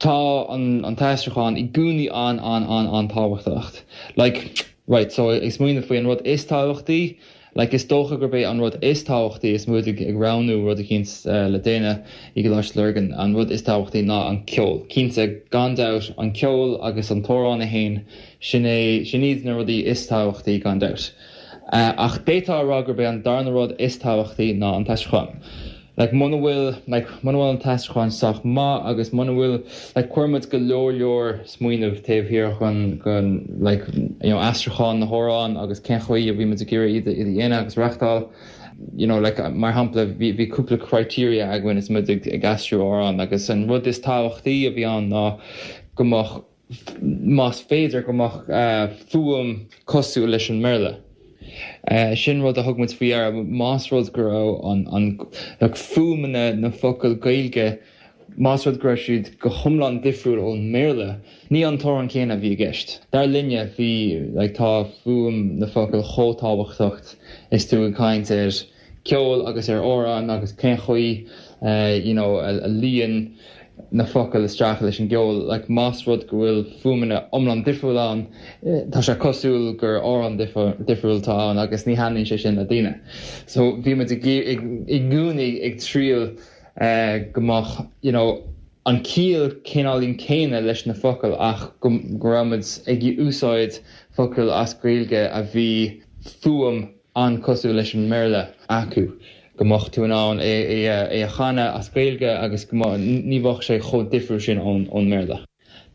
tá an t-aistriúchán i gcónaí an-an-an-an-tábhachtach. Like, right, so ag smaoineamh faoi an rud is tábhachtaí, like is dócha gurb é an rud is tábhachtaí is muid ag roghnú rud eicínt le déanamh i gColáiste Lurgan, an rud is tábhachtaí ná an ceol. Cinnte, gan dabht, an ceol agus an t-amhrán é féin, sin é, sin iad na rudaí is tábhachtaí gan dabht. Ach d'fhéadfá a rá gurb é an darna rud is tábhachtaí ná an t-aistriúchán. Like muna bhfuil, like muna bhfuil an t-aistriúchán sách maith agus muna bhfuil, like chuir muid go leor leor smaoineamh taobh thiar den, den like you know aistriúchán na hamhrán agus cén chaoi a bhí muid ag iarraidh iad a, iad a dhéanamh agus reachtáil. You know like mar shampla bhí, bhí cúpla criteria againn is muid ag, ag aistriú amhrán agus an rud is tábhachtaí a bhí ann ná go mbeadh más féidir, go mbeadh fuaim cosúil leis an mBéarla. Sin rud a thug muid faoi deara, más rud go raibh an, like fuaimeanna na focail Gaeilge, más rud go raibh siad go hiomlán difriúil ón mBéarla, ní an t-amhrán céanna a bhí i gceist. Dar linne, bhí, like tá fuaim na focail chomh tábhachtach is tú ag caint ar ceol agus ar amhrán agus cén chaoi you know a luíonn na focail isteach leis an gceol. Like más rud go bhfuil fuaimeanna iomlán difriúil ann, tá sé cosúil gur amhrán difriúil atá ann agus ní thaitníonn sé sin le daoine. So bhí muid i gcónaí ag triail go mbeadh you know an ciall cineáilín céanna leis na focail ach go raibh muid ag úsáid focail as Gaeilge a bhí fuaim an-cosúil leis an mBéarla acu, go mbeadh tú in ann é a chanadh as Gaeilge agus go mbeadh, ní bheadh sé chomh difriúil sin ón mBéarla.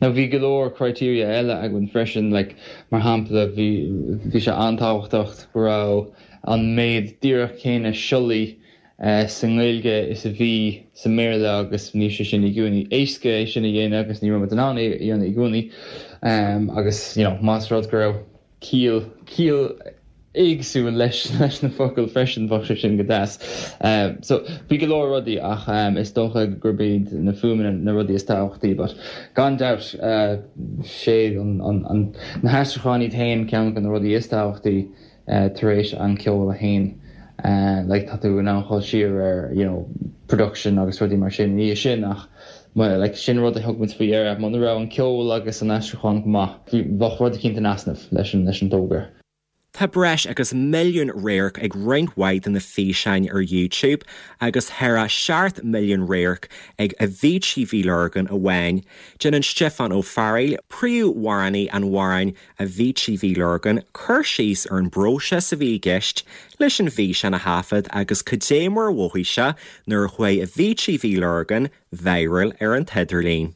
Now bhí go leor criteria eile againn freisin, like mar shampla bhí, bhí sé an-tábhachtach go raibh an méid díreach céanna siollaí. sa nGaeilge is a bhí sa mBéarla agus ní sé sin i gcónaí éasca é sin a dhéanamh agus ní raibh muid in ann é a dhéanamh i gcónaí agus you know más rud go raibh ciall ciall éagsúil leis leis na focail freisin bheadh sé sin go deas. So bhí go leor rudaí ach is dócha gurb iad na fuaimeanna na rudaí is tábhachtaí but gan dabht sé an an na haistriúcháin iad féin ceann de na rudaí is tábhachtaí tar éis an ceol é féin like tá tú in ann dhul siar ar you know production agus rudaí mar sin ina dhiaidh sin ach like sin rud a thug muid faoi deara muna raibh an ceol agus an aistriúchán go maith bheadh rud eicínt in easnamh leis an leis an dtógra. Tá breis agus milliún radharc ag roinnt mhaith de na físeáin ar YouTube agus thar a 7 milliún radharc ag Avicii Bhí Lurgan amháin. Déanann Stiofán Ó Fearghaíl, príomhamhránaí an amhráin Avicii Bhí Lurgan, cur síos ar an bpróiseas a bhí i gceist leis an bhfíseán a thaifead agus cad é mar a mhothaigh sé nuair a chuaigh Avicii Bhí Lurgan viral ar an t-idirlíon.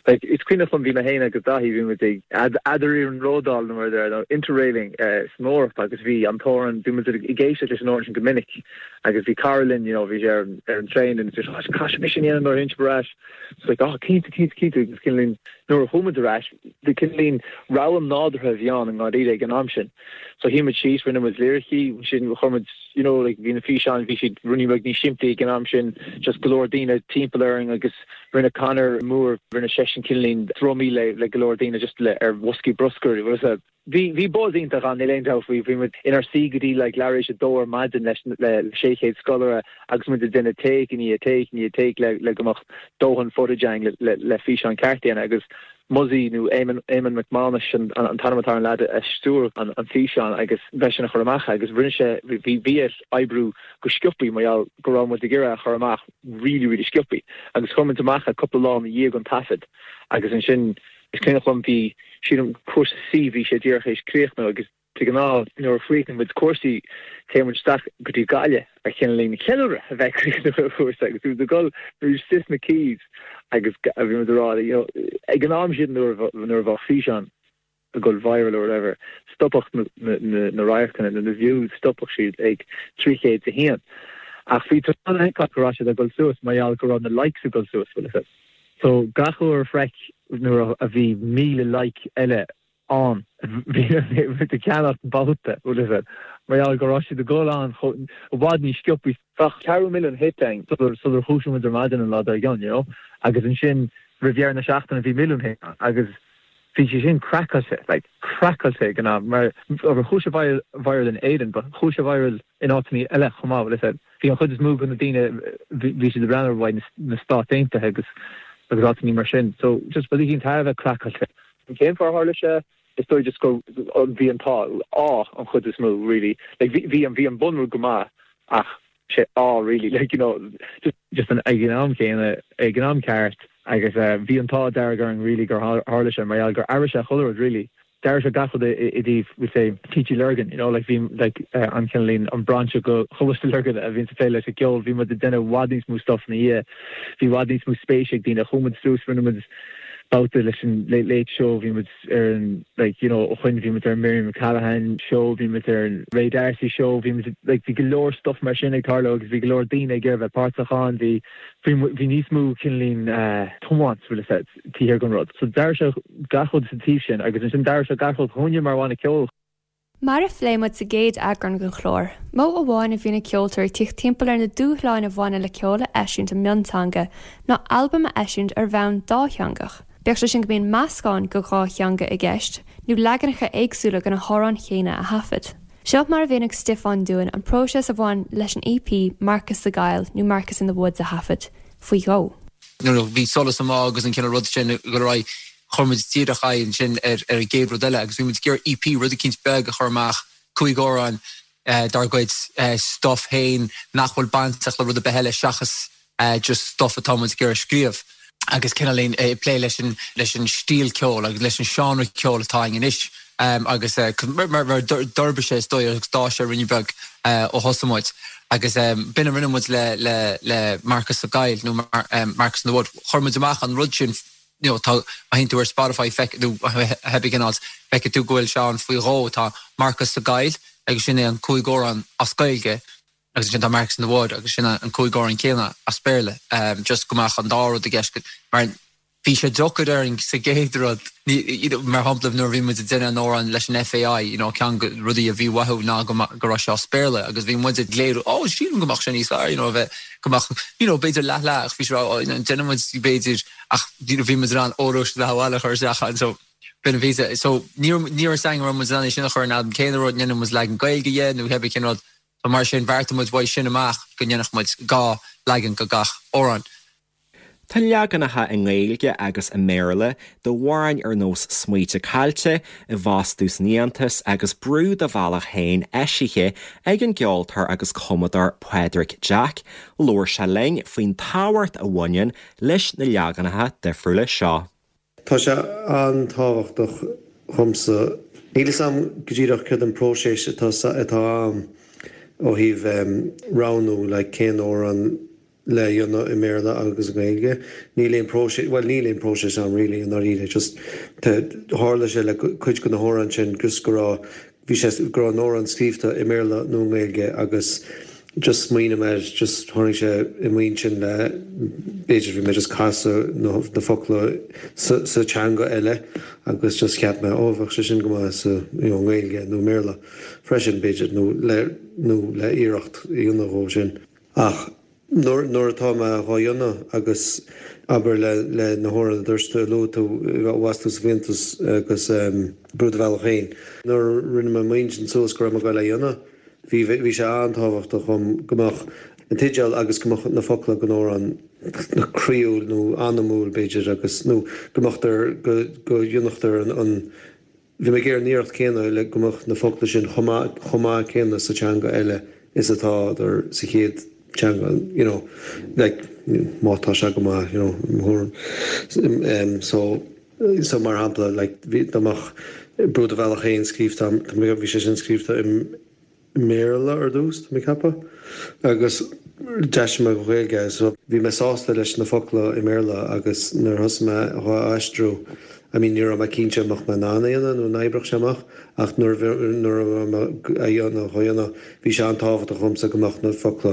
Like, is cuimhneach liom, bhí mé féin agus Daithí, bhí muid ag eadariarnródáil nó mar a deir, nó interrailing san Eoraip agus bhí an t-amhrán, bhí muid ag éisteacht leis an amhrán sin go minic agus bhí cara linn, you know, bhí sé ar ar an traein and oh, caithfidh mise sin a dhéanamh nuair a théann sibh ar ais. It's like, oh, cinnte, cinnte, cinnte agus cineál nuair a chuaigh muid ar ais, de cineál rogha nádúrtha a bhí ann i ndáiríre ag an am sin. So shuigh muid síos, rinne muid liricí, ansin chuir muid, you know, like bhí na físeáin, bhí siad rudaí beag níos simplí ag an am sin, just go leor daoine timpeall orainn agus rinne Conor Moore, rinne seisean cineál drumaí le le go leor daoine just le ar bhoscaí bruscair, bhfuil a fhios agat. Bhí, bhí buzz iontach ann, níl aon dabht faoi. Bhí muid inár suí go dtí like leathuair tar éis a dó ar maidin leis le 600 scoláire agus muid ag déanamh take i ndiaidh take i ndiaidh take le le go mbeadh dóthain footage againn le le le físeán ceart a dhéanamh agus Muzzy nó Éamonn Éamonn Mac Mánais an an t-ainm atá ar an leaid a stiúir an an físeán agus b'eisean a chuir amach é agus rinne sé bhí bhí air oibriú go sciopaí mar gheall go raibh muid ag iarraidh é a chur amach really really sciopaí agus chuir muid amach é cúpla lá ina dhiaidh an taifead agus ansin Is cuimhneach liom bhí, sílim, cúrsa C, bhí sé díreach théis críochnú agus de ghnáth nuair a chríochnaíonn muid cúrsaí téann muid isteach go dtí Gaillimh ar chineál ceiliúradh a bheith ag críochnú an chúrsa agus bhí muid ag dul, bhí muid istigh sna Quays agus bhí muid ag rá you know ag an am sin nuair nuair a bheadh físeán ag dul viral or whatever, stopfadh na radharcanna nó na views, stopfadh siad ag 301. Ach bhí tú in ann a fheiceáil go raibh siad ag dul suas mar gheall go raibh na likes ag dul suas, bhfuil a fhios agat. So gach uair a freic nuair a bhí 1,000 like eile ann, bhí muid ag ceannacht babhta, bhfuil a fhios agat, mar gheall go raibh siad ag dul ann chomh i bhfad níos sciobthaí. Bheadh ceathrú milliún hit againn sular sular dhúisigh muid ar maidin an lá dár gcionn, you know, agus ansin roimh dheireadh na seachtaine bhí milliún hit ann agus bhí sé sin craiceáilte, like craiceáilte ag an am mar chuaigh sé viral viral in Éirinn but chuaigh sé viral in áiteanna eile chomh maith, bhfuil a fhios agat. Bhí an chuid is mó de na daoine, bhí siad ag breathnú ar uaidh na Stáit Aontaithe agus agus áiteanna mar sin. So just rud éicint thar a bheith craiceáilte. Cén fáth ar tharla sé? Is dóigh just go bhí an t-ádh, ádh an chuid is mó really. Like bhí bhí an bhí an bunrud go maith ach sé ádh really like you know just just an ag an am céanna ag an am ceart agus bhí an t-ádh dearg orainn really gur tharla sé mar gheall gur athraigh sé chuile rud really. D'athraigh sé gach rud i dtaobh we'll say TG Lurgan, you know, like bhí like an cineál an brainse de Choláiste Lurgan a bhíonns ag plé leis an gceol, bhí muid ag déanamh i bhfad níos mó stuff ina dhiaidh, bhí i bhfad níos mó spéise ag daoine, chuaigh muid suas, rinne muid babhta leis an Late Late Show, bhí muid ar an like you know ó shoin bhí muid ar an Miriam O'Callaghan Show, bhí muid ar an Ray D'Arcy Show, bhí muid like bhí go leor stuff mar sin ag tarlú agus bhí go leor daoine ag iarraidh bheith páirteach ann, bhí bhí bhí níos mó cineál tiomáint bhfuil a fhios agat. taobh thiar den rud. So d'athraigh sé gach rud sa taobh sin agus ansin d'athraigh sé gach rud dhúinne mar bhanna ceoil. Mar a phléigh muid sa gcéad eagrán den chlár, modh amháin a bhíonn ag ceoltóirí tíocht timpeall ar na dúshláin a bhaineann le ceol a eisiúint i mionteanga ná albam a eisiúint ar bhonn dátheangach, bíodh sé sin go mbíonn meascán de dhá theanga i gceist nó leaganacha éagsúla de na hamhráin chéanna a thaifead. Seo mar a mhínigh Stiofán dúinn an próiseas a bhain leis an EP 'Marcas sa gCoill' nó 'Marcas in the Woods' a thaifead faoi dhó. Nuair a bhí Solas an Bhá agus an cineál rud sin ag dul ar aghaidh, chuir muid díreach aghaidh ansin ar an gcéad rud eile agus bhí muid ag iarraidh EP, rud eicínt beag a chur amach, cúig amhrán dár gcuid stuff féin nach bhfuil bainteach le rud ar bith eile seachas just stuff atá muid ag iarraidh scríobh. Agus cineáilín ag plé leis an leis an stíl ceoil agus leis an seánra ceoil atá againn anois agus mar d'fhorbair sé is dóigh agus d'fhás sé ruainne beag ó thosaigh muid. Agus b'in a rinne muid le le le Marcas sa gCoill nó Marcas in the Wood. Chuir muid amach an rud sin you know tá má théann tú ar Spotify feic nó cibé cén áit feicfidh tú go bhfuil sé ann faoi dhó. Tá Marcas sa gCoill agus sin é an cúig amhrán as Gaeilge. Agus ansin tá Marcus in the Wood agus sin an 5 amhrán céanna as Béarla. Just go mbeadh an dá rud i gceist mar bhí sé deacair orainn sa gcéad rud, mar shampla nuair a bhí muid ag déanamh an amhrán leis an FAI, you know, ceann de rudaí a bhí uathu ná go go raibh sé as Béarla agus bhí muid ag léiriú, oh sílim go mbeadh sé níos fearr, you know, a bheith, go mbeadh, you know, b'fhéidir leath leath ach bhí sé oh, you know, déanann muid b'fhéidir ach you know, bhí muid in ann óró sé leath abhaile a chur isteach ann so b'in a bhí sa, so ní raibh ní raibh a fhios againn an raibh muid in ann é sin a chur in albam cén rud, ndéanann muid leagan Gaeilge dhe nó cébí cén rud. So mar sin bheartaigh muid uaidh sin amach go ndéanfadh muid 2 leagan go gach amhrán. Tá leaganacha i nGaeilge agus i mBéarla d'amhráin ar nós Smaointe Caillte, I bhFostú san Fhiántas agus Brú Do Bhealach Féin eisithe ag an gceoltóir agus cumadóir Pádraig Jack. Labhair sé linn faoin tábhacht a bhaineann leis na leaganacha difriúla seo. Tá sé an-tábhachtach dhomsa. Níl fhios a'm go díreach céard an próiseas atá atá ann ó thaobh roghnú like cén amhrán le dhéanamh i mBéarla agus i nGaeilge. Níl aon próiseas, bhuel níl aon próiseas ann really i ndáiríre just tharla sé le cuid de na hamhráin sin just go raibh Bhí sé go raibh an amhrán scríobhta i mBéarla nó i nGaeilge agus just smaoinigh mé air, just tháinig sé i m'intinn le, b'fhéidir bhí mé just casadh na na focla sa sa teanga eile agus just cheap mé oh bheadh sé sin go maith sa you know nGaeilge nó i mBéarla freisin b'fhéidir nó le nó le iarracht a dhéanamh dhó sin. Ach nuair, nuair atá mé dhá dhéanamh agus abair le, le na hamhráin a dúirt tú, a luaigh tú, i bhfostú sa bhFiántas agus Brú Do Bhealach Féin. Nuair a rinne mé m'intinn suas go raibh mé ag goil á dhéanamh, bhí, bhí sé an-tábhachtach dhom go mbeadh an teideal agus go mbeadh na focla den amhrán croíúil nó anamúil b'fhéidir agus, nó go mbeadh, go, go ndéanfadh an, an, Bhí mé ag iarraidh an iarracht céanna le go mbeadh na focla sin chomh maith, chomh maith céanna sa teanga eile is atádar sa chéad teanga, you know, like, má tá sé go maith, you know, i mo thuairim. So, so mar shampla, like, bhí, dá mbeadh Brú Do Bhealach Féin scríobhta, bhí sé sin scríobhta i, mBéarla ar dtús, tá mé ag ceapadh, agus d'aistrigh mé go Gaeilge é. So bhí mé sásta leis na focla i mBéarla agus nuair a thosaigh mé dhá aistriú, I mean ní raibh mé cinnte an mbeadh mé in ann é a dhéanamh nó an oibreodh sé amach ach nuair a nuair a bhí mé a dhéanamh dhá dhéanamh bhí sé an-tábhachtach dhomsa go mbeadh na focla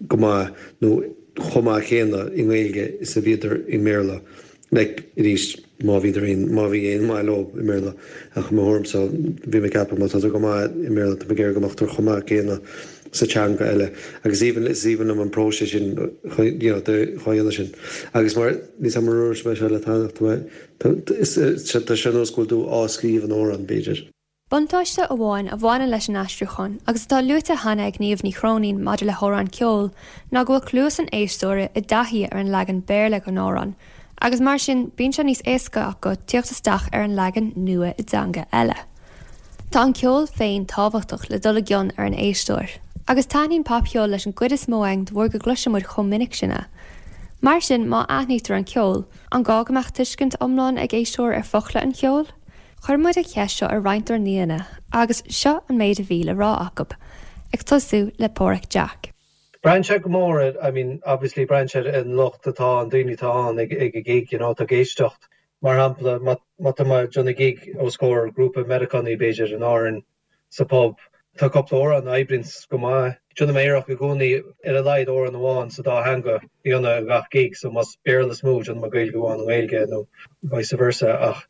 go maith nó chomh maith céanna i nGaeilge is a bhíodar i mBéarla. Like, arís, má bhíodar aon, má bhí aon mhaith leo i mBéarla. Ach i mo thuairimse, bhí mé ag ceapadh má tádar go maith i mBéarla, tá mé ag iarraidh go mbeadh chomh maith céanna sa teanga eile. Agus is aoibhinn, is aoibhinn liom an próiseas sin, you know, de dhá dhéanamh sin. Agus mar, níl 's a'm ar dhúirt mé seo leat cheana, tá mé, tá, is, tá sé ar nós go bhfuil tú á scríobh an amhrán, b'fhéidir. Buntáiste amháin a bhaineann leis an aistriúchán, agus atá luaite cheana ag Niamh Ní Chróinín maidir le hamhráin ceoil, ná go bhfuil cluas an éisteora i dtaithí ar an leagan Béarla den amhrán, agus mar sin bíonn sé níos éasca acu tíocht isteach ar an leagan nua i dteanga eile. Tá an ceol féin tábhachtach le dul i gcion ar an éisteoir, agus taitníonn popcheol leis an gcuid is mó againn de bharr go gcloiseann muid chomh minic sin é. Mar sin, má aithnítear an ceol, an gá go mbeadh tuiscint iomlán ag éisteoir ar fhocla an cheoil? Chuir muid an cheist seo ar roinnt dár n-aíonna agus seo an méid a bhí le rá acu, ag tosú le Páraic Jack. Braitheann sé go mór ar, I mean, obviously braitheann sé ar an lucht atá ann, daoine atá ann ag ag an gig, you know, atá ag éisteacht. Mar shampla, má má tá mé ag déanamh gig os comhair grúpa Meiriceánaigh b'fhéidir in Árainn sa pub, tá cúpla amhrán a oibríonns go maith. Déanaim iarracht i gcónaí ar a laghad amhrán amháin sa dá theanga a dhéanamh ag gach gig, so más Béarla is mó, déanaim Gaeilge amháin i nGaeilge nó vice versa ach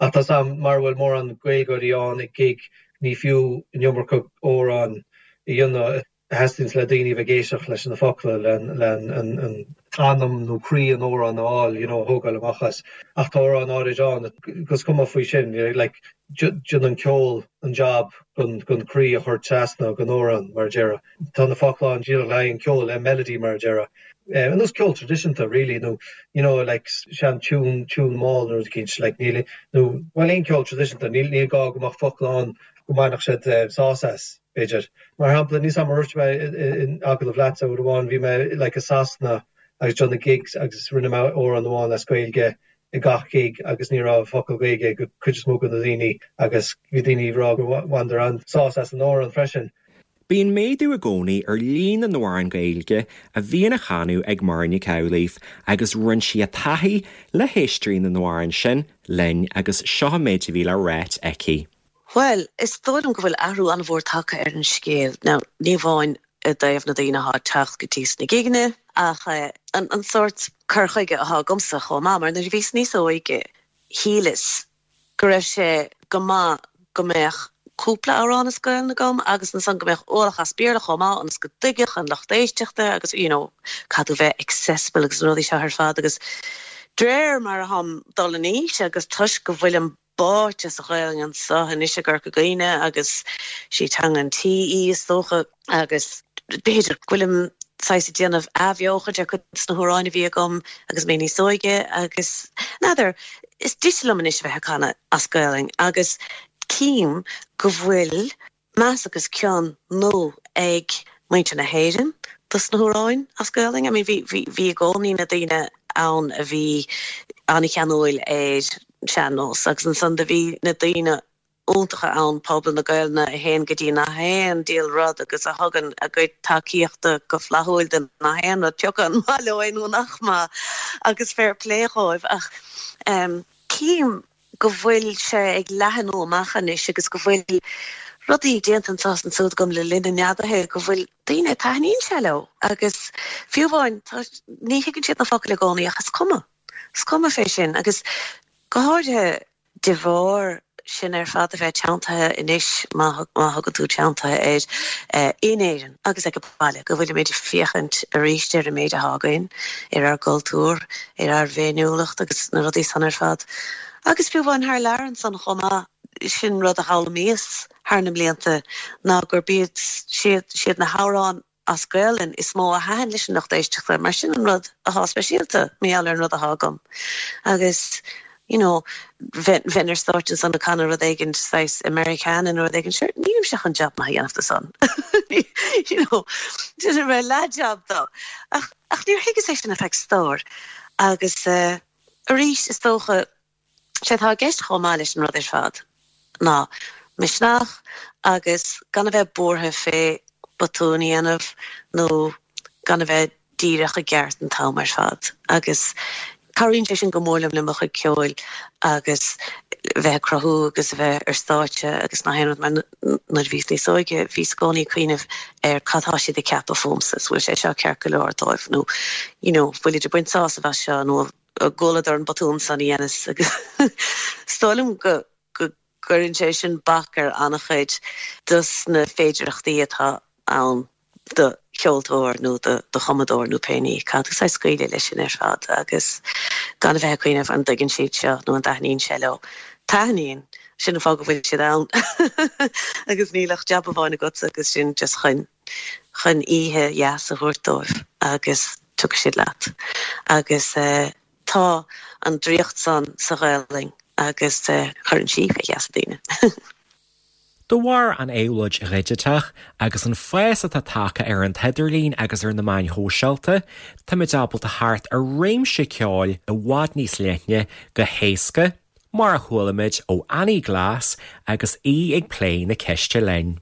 Ach tá 's a'm, mara bhfuil mórán Gaeilgeoirí ann ag gig, ní fiú an iomarca amhrán a dhéanamh a theastaíonns le daoine a bheith ag éisteacht leis na focla, le an anam nó croí an amhráin a fháil, you know, a thógáil amach as. Ach tá amhráin áirid ann agus is cuma faoi sin, like, déanann an ceol an job gon croí a chur trasna gon amhrán, mar a déarfá. Tá na focla ann díreach le haghaidh an ceoil, le melody, mar a déarfá. Ar nós ceol traidisiúnta really nó you know like sean tune, tune mall nó rud eicínt like níl nó bhuel aon ceol traidisiúnta níl níl gá go mbeadh focla ann go mbainfeadh siad sás as, b'fhéidir. Mar shampla níl 's a'm ar dhúirt mé in agallamh leatsa uair amháin bhí mé like i Sasana agus déanamh gigs agus rinne mé amhrán amháin as Gaeilge ag gach gig agus ní raibh focal Gaeilge ag cuid is mó de na daoine agus bhí daoine ag rá go bhaineadar an-sás as an amhrán freisin. Bíonn méadú i gcónaí ar líon na n-amhrán Gaeilge a bhíonn á chanadh ag Muireann Nic Amhlaoibh agus roinn sí a taithí le héisteoirí na n-amhrán sin linn agus seo an méid a bhí le ráit aici. Bhuel, is dóigh liom go bhfuil athrú an-mhór tagtha ar an scéal. Now, ní amháin. i dtaobh na daoine atá ag teacht go dtí sna gigeanna ach an sórt cur chuige atá agamsa chomh maith mar nuair a bhíos níos óige shíleas go raibh sé go maith go mbeadh cúpla amhrán as Gaelainn agam agus ansan go mbeadh ualach as Béarla chomh maith ionas go dtuigfeadh an lucht éisteachta agus you know caithfidh tú bheith accessible agus na rudaí seo ar fad agus de réir mar atáim dul in aois agus toisc go bhfuilim báite sa Ghaelainn anso anois i gCorca Dhuibhne agus sí teanga an tí í is dócha agus b'fhéidir go bhfuilim saghas ag déanamh athbheochaint ar cuid de na hamhráin a bhí agam agus mé níos óige agus n'fheadar, is deise liom anois a bheith ag canadh as Gaelainn agus cím go bhfuil meas agus cion nua ag muintir na hÉireann dos na hamhráin as Gaelainn. I mean bhí, bhí, bhí i gcónaí na daoine ann a bhí an-cheanúil ar sean-nós agus ansan do bhí na daoine iontacha ann, pobal na Gaelainne a théann go dtí nach aon diabhal rud agus a thugann a gcuid tacaíochta go flaithiúil do nach aon rud, pioca an maith leo é nó nach maith, agus fair play dhóibh. Ach cím go bhfuil sé ag leathanú amach anois agus go bhfuil rudaí déanta anseo is ansúd agam le linn an neadaithe go bhfuil daoine, taitníonn sé leo agus fiú amháin ní thuigeann siad na focail i gcónaí ach is cuma, is cuma fé sin agus go háirithe De bharr sin ar fad a bheith teanntaithe anois, má thugann tú teanntaithe air, in Éirinn agus ag baile, go bhfuilimid ag féachaint arís ar an méid atá againn, ar ár gcultúr, ar ár bhféiniúlacht agus na rudaí san ar fad. Agus fiú amháin thar lear ansan chomh maith, sin rud a d'fhoghlaimíos thar na mblianta ná gurb iad siad na hamhráin as Gaelainn is mó a thaitin leis an lucht éisteachta mar sin an rud athá speisialta mar gheall ar an rud athá agam agus you know bheinn ar stáitse ansan ag canadh rud éigin saghas Americana nó rud éigin sure nílimse chun jab maith a dhéanamh de san you know déanfaidh mé leath-jab dó ach ach níor thuigeas é sin ar feadh stór agus eh arís is dócha Sé atá i gceist chomh maith leis an rud ar fad ná misneach agus gan a bheith buartha fé botún a dhéanamh nó gan a bheith díreach i gceart an t-am ar fad agus cabhraíonn sé sin go mór liom le mo chuid ceoil agus bheith ag cruthú agus a bheith ar stáitse agus nach aon rud mar nuair a bhíos níos óige bhíos i gcónaí ag cuimhneamh ar cad tá siad ag ceapadh fúmsa, is bhfuil sé seo ceart go leor dóibh nó you know bhfuilid ag baint sásamh as seo nó gcualadar an botún san a dheineas agus is dóigh liom go gcuireann sé sin bac ar an-chuid dos na féidireachtaí atá ann do cheoltóir nó do chumadóir nó pé ní. Caithfidh tú saghas scaoileadh leis sin ar fad agus gan a bheith ag cuimhneamh an dtuigeann siad seo nó an dtaitníonn sé leo. Taitníonn! Sin an fáth go bhfuil siad ann agus níl ach jab amháin agatsa agus sin just chun chun oíche dheas a thabhairt dóibh agus tiocfaidh siad leat. Agus tá an draíocht san sa Ghaelainn agus cuireann sí fé gheasa daoine. De bharr an éabhlóid dhigiteach agus an fás atá tagtha ar an t-idirlíon agus ar na meáin shóisialta, táimid ábalta theacht ar réimse ceoil i bhfad níos leithne go héasca, mar a chualaimid ó Annie Glass agus í ag plé na ceiste linn.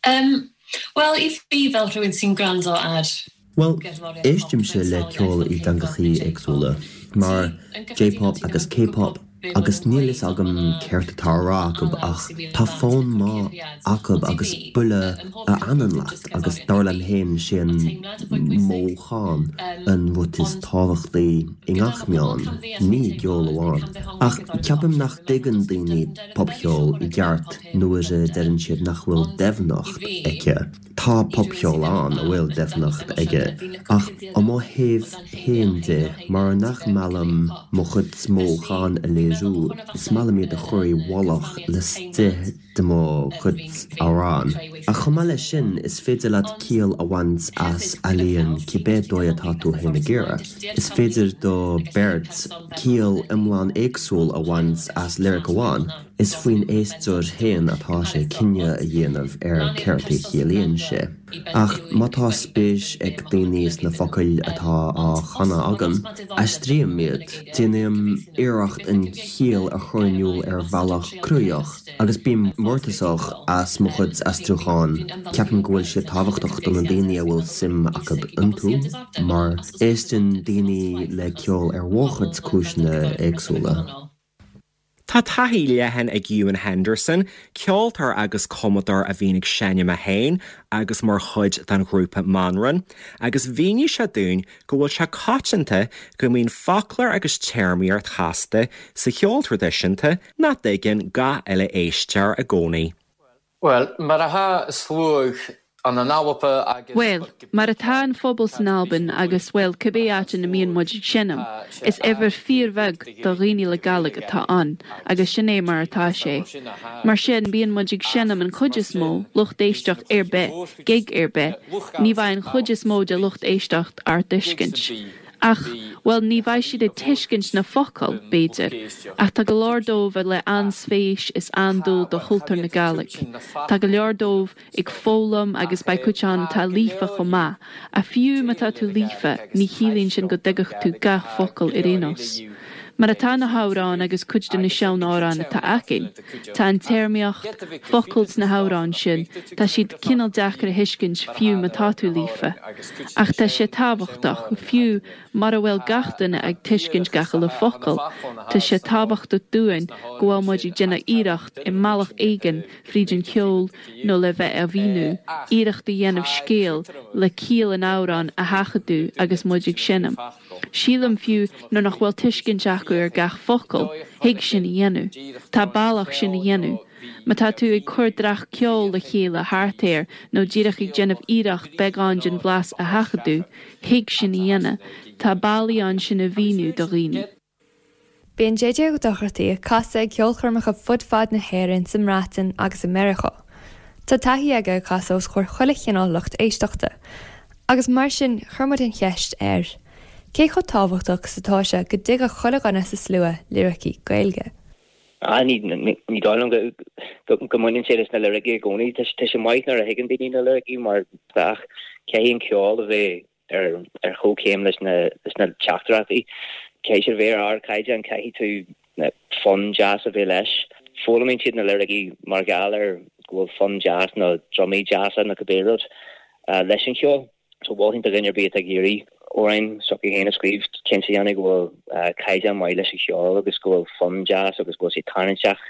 Yym, wel i fi fel rhywun sy'n gwrando ar Bhuel, éistimse le ceol i dteangachaí éagsúla, mar J-pop agus K-pop, agus níl fhios agam céard atá á rá acu ach tá fonn maith acu agus buille a fhanann leat agus dar liom féin sé an mothúchán an rud is tábhachtaí i ngach meán, ní i gceol amháin. Ach ceapaim nach dtuigeann daoine popcheol i gceart nuair a deireann siad nach bhfuil doimhneacht aici. Tá popcheol ann a bhfuil doimhneacht aige, ach ó mo thaobh féin de, mar nach maith liom mo chuid mothúchán a léiriú, is maith liom iad a chur i bhfolach laistigh de mo chuid amhrán. Ach chomh maith leis sin, is féidir leat ciall a bhaint as ealaíon cibé dóigh atá tú féin ag iarraidh. Is féidir do beirt ciall iomlán éagsúil a bhaint as liric amháin. Is faoin éisteoir féin atá sé cinneadh a dhéanamh ar céard a chiallaíonn sé. Ach má tá spéis ag daoine sna focail atá á chanadh agam, aistrím iad. Déanaim iarracht an chiall a chur in iúl ar bhealach cruthaitheach. Agus bím mórtasach as mo chuid aistriúchán, ceapaim go bhfuil siad tábhachtach do na daoine a bhfuil suim acu iontu, mar éisteann daoine le ceol ar mhórchuid cúiseanna éagsúla. Tá taithí leathan ag Ewan Henderson, ceoltóir agus cumadóir a bhíonn ag seinm é féin agus mar chuid den ghrúpa Manran, agus mhínigh sé dúinn go bhfuil sé coitianta go mbíonn foclóir agus téarmaíocht chasta sa cheol traidisiúnta nach dtuigeann gach uile éisteoir i gcónaí. Bhuel, mar atá sluagh ann in Alba agus. Bhuel, mar atá an phobal san Albain agus, bhuel, cibé áit ina mbíonn muid ag seinm, is uimhir fíorbheag do dhaoine le Gàidhlig atá ann agus sin é mar atá sé. Mar sin, bíonn muid ag seinm an chuid is mó, lucht éisteacht ar bith, gig ar bith, ní bheidh an chuid is mó de lucht éisteacht ár dtuiscint. Ach, bhuel, ní bheidh siad ag tuiscint na focail, b'fhéidir, ach tá go leor dóibh le an-spéis is an-dúil do chultúr na Gàidhlig. Tá go leor dóibh ag foghlaim agus beidh cuid ann atá líofa chomh maith, ach fiú má tá tú líofa, ní chiallaíonn sin go dtuigfeadh tú gach focal ar aon nós. Mar atá na hamhráin agus cuid de na sean-amhráin atá againn, tá an téarmaíocht, focail sna hamhráin sin, tá siad cineál deacair a thuiscint fiú má tá tú líofa. Ach tá sé tábhachtach, fiú mura bhfuil gach duine ag tuiscint gach uile focal, tá sé tábhachtach dúinn go bhfuil muid ag déanamh iarracht i mbealach éigin fríd an cheol nó le bheith á mhíniú, iarracht a dhéanamh scéal le ciall an amhráin a sheachadadh agus muid ag seinm. Sílim fiú nuair nach bhfuil tuiscint acu ar gach focal, thig sin a dhéanamh. Tá bealach sin a dhéanamh. Má tá tú ag cur dreach ceoil le chéile thart air nó díreach ag déanamh iarracht beagán den bhlas a sheachadadh, thig sin a dhéanamh. Tá bealaí ann sin a mhíniú do dhaoine. Bíonn JJ Ó Dochartaigh ag casadh ag ceolchoirmeacha fud fad na hÉireann, sa mBreatain agus i Meiriceá. Tá taithí aige ag casadh os comhair chuile chineál lucht éisteachta. Agus mar sin, chuir muid an cheist air, cé chomh tábhachtach is atá sé go dtuigfeadh chuile dhuine sa slua liricí Gaeilge? Ah, ní dóigh liom go mbaineann sé leis na liricí i gcónaí. Tá sé maith nuair a thuigeann daoine na liricí mar ach caithfidh an ceol a bheith ar chomhchéim leis na teachtaireachtaí. Caithfidh siad a bheith ar ardchaighdeán, caithfidh tú fonn deas a bheith leis. Foghlaimíonn siad na liricí mar gheall ar go bhfuil fonn deas nó drumaí deasa nó cibé rud leis an cheol. So mholfainn do dhuine ar bith atá ag iarraidh amhráin s'acu féin a scríobh, cinnte a dhéanamh go bhfuil caighdeán maith leis an cheol agus go bhfuil fonn deas agus go bhfuil sé tarraingteach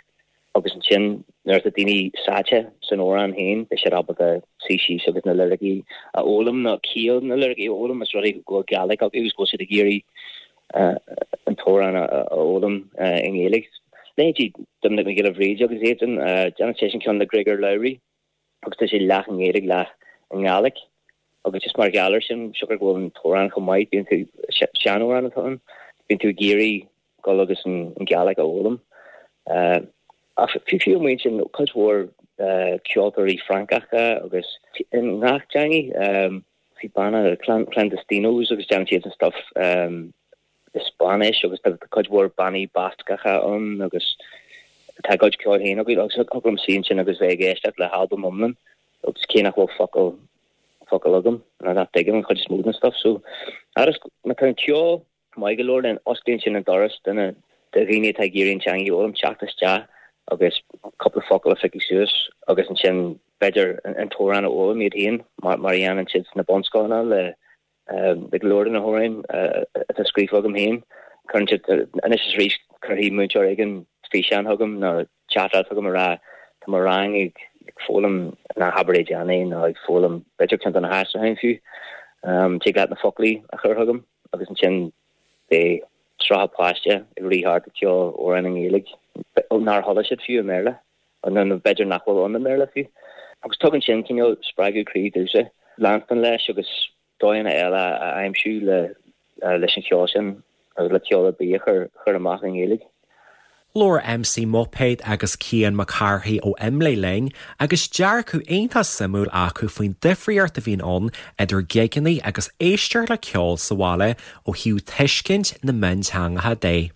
agus ansin nuair atá daoine sáite san amhrán féin beidh siad ábalta suí síos agus na liricí a fhoghlaim nó ciall na liricí a fhoghlaim más rud é go bhfuil Gàidhlig acu agus go bhfuil siad ag iarraidh an t-amhrán a fhoghlaim i nGaeilge. Leithéidí Doiminic Mac Giolla Bhríde agus iad sin, déanann seisean ceann le Griogair Labhruidh. agus tá sé leath i nGaeilge, leath i nGàidhlig agus just mar gheall air sin, siocair go bhfuil an t-amhrán chomh maith, bíonn tú, seanamhrán atá ann, bíonn tú ag iarraidh dul agus an Gàidhlig a fhoghlaim. Ach fiú fiú amuigh ansin, cuid mhór ceoltóirí Francacha agus i ngach teangaidh, bhí banna Clandestinos agus déanann siad an stuff i Spáinnis agus tá cuid mhór bannaí Bascacha ann agus tá a gcuid ceoil féin acu agus thig liom suí ansin agus bheith ag éisteacht le halbam iomlán agus cé nach bhfuil focal focal agam nó nach dtuigim an chuid is mó den stuff so agus má tá an ceol maith go leor then osclaíonn sin an doras do na do dhaoine atá ag iarraidh an teanga a fhoghlaim teacht isteach agus cúpla focal a phiocadh suas agus ansin b'fhéidir an t-amhrán a fhoghlaim iad féin mar mar a dhéanann siad sna bunscoileanna le Le go leor de na hamhráin atá scríofa agam féin, cuireann siad, anois is arís, cuirfidh múinteoir éigin físeán chugam nó teachtaireacht chugam ag rá tá mo rang ag foghlaim na habair é nó ag foghlaim b'fhéidir ceann de na haistriúcháin fiú. Tig leat na foclaí a chur chugam agus ansin beidh 30 páiste ag rith thart ag ceol amhrán i nGaeilge nár chuala siad fiú i mBéarla nó b'fhéidir nach bhfuil ann i mBéarla fiú. Agus tugann sin cineál spreagadh croí domhsa leanstan leis agus dóigheanna eile a aimsiú le leis an cheol sin agus le ceol ar bith a chur chur amach i nGaeilge. Labhair MC Muipéad agus Cian Mac Cárthaigh ó IMLÉ linn agus dearcadh iontach suimiúil acu faoin difríocht a bhíonn ann idir gigeanna agus éisteacht le ceol sa bhaile ó thaobh tuiscint na mionteangacha de.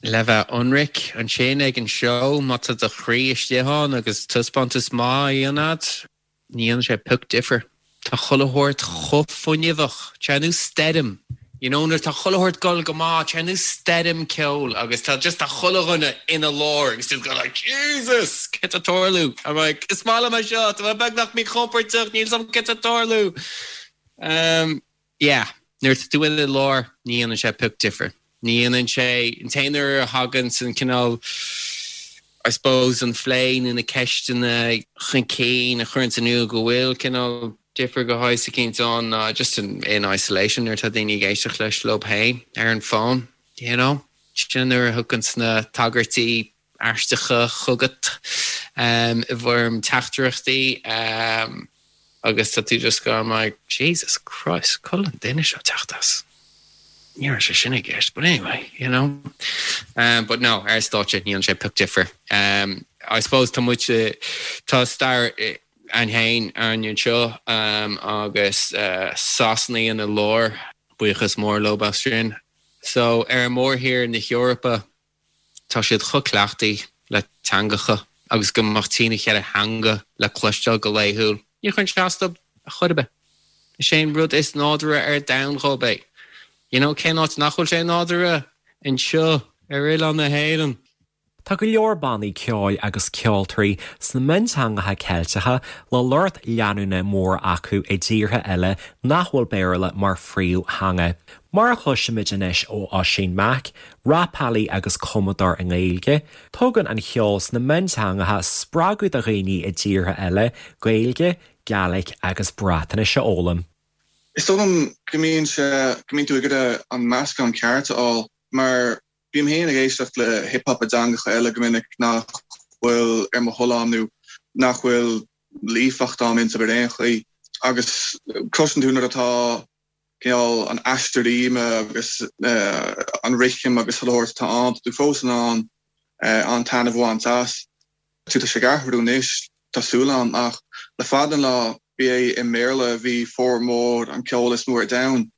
Le bheith ionraic, ansin ag an seó, má tá do chroí istigh ann agus taispeántas maith á dhéanamh agat, ní dhéanann sé pioc difir. Tá chuile shórt chomh fuinneamhach, tá sé ar nós stoirm, you know, nuair atá chuile shórt ag dul go maith, tá sé ar nós stoirm ceoil agus tá just tá chuile dhuine ina lár agus just going like Jesus! Céard tá ag tarlú? I'm like, is maith liom é seo, tá mé beagnach míchompordach, níl 's agam céard tá ag tarlú. Um, yeah, nuair atá tú ina lár, ní dhéanann sé pioc difir. Ní dhéanann sé, an t-aon uair a thagann an cineál, I suppose, an phlé nó na ceisteanna chun cinn a chuireanns in iúl go bhfuil cineál difear de shaghas eicínt ann ná just in in isolation nuair atá daoine ag éisteacht leis leo féin ar an bhfón, you know. Sin an uair a thiocfainn na tagairtí aisteacha chugat i bhfoirm teachtaireachtaí agus tá tú just going like Jesus Christ, cá bhfuil an duine seo ag teacht as? Ní raibh sé sin i gceist, but anyway, you know. But no, ar stáitse ní dhéanann sé pioc difir. I suppose tá muid, tá stair againn féin againn anseo agus Sasanaigh ina lár, buíochas mór leo as sin. So ar mhórthír na hEorpa, Tá siad chomh cleachtaithe le teangacha agus go mbeadh trína cheithre theanga le cloisteáil go laethúil. Ní chuireann sé as dóibh ar chor ar bith. Is é an rud is nádúrtha ar domhan dhóibh é. You know, cén áit nach bhfuil sé nádúrtha? Anseo, ar oileán na hÉireann. Tá go leor bannaí ceoil agus ceoltóirí sna mionteangacha Ceilteacha le lucht leanúna mór acu i dtíortha eile nach bhfuil Béarla mar phríomhtheanga. Mar a chloisimid anois ó Oisín Mac, rapálaí agus cumadóir i nGaeilge, tugann an cheol sna mionteangacha spreagadh do dhaoine i dtíortha eile Gaeilge, Gaelic agus Breatnais a fhoghlaim. Is dóigh liom go mbíonn sé, go mbíonn tú ag iarraidh an meascán ceart a fháil mar bím féin ag éisteacht le hip hop i dteangacha eile go minic nach bhfuil ar mo thoil a'm nó nach bhfuil líofacht a'm iontu ar aon chaoi agus cloiseann tú nuair atá cineál an aistear ríme agus an rithim agus chuile shórt atá ann, tá tú fós in ann an-taitneamh a bhaint as. Tá sé ag athrú anois, tá súil a'm, ach le fada an lá ba é i mBéarla a bhí formhór an ceol is mó ar domhan.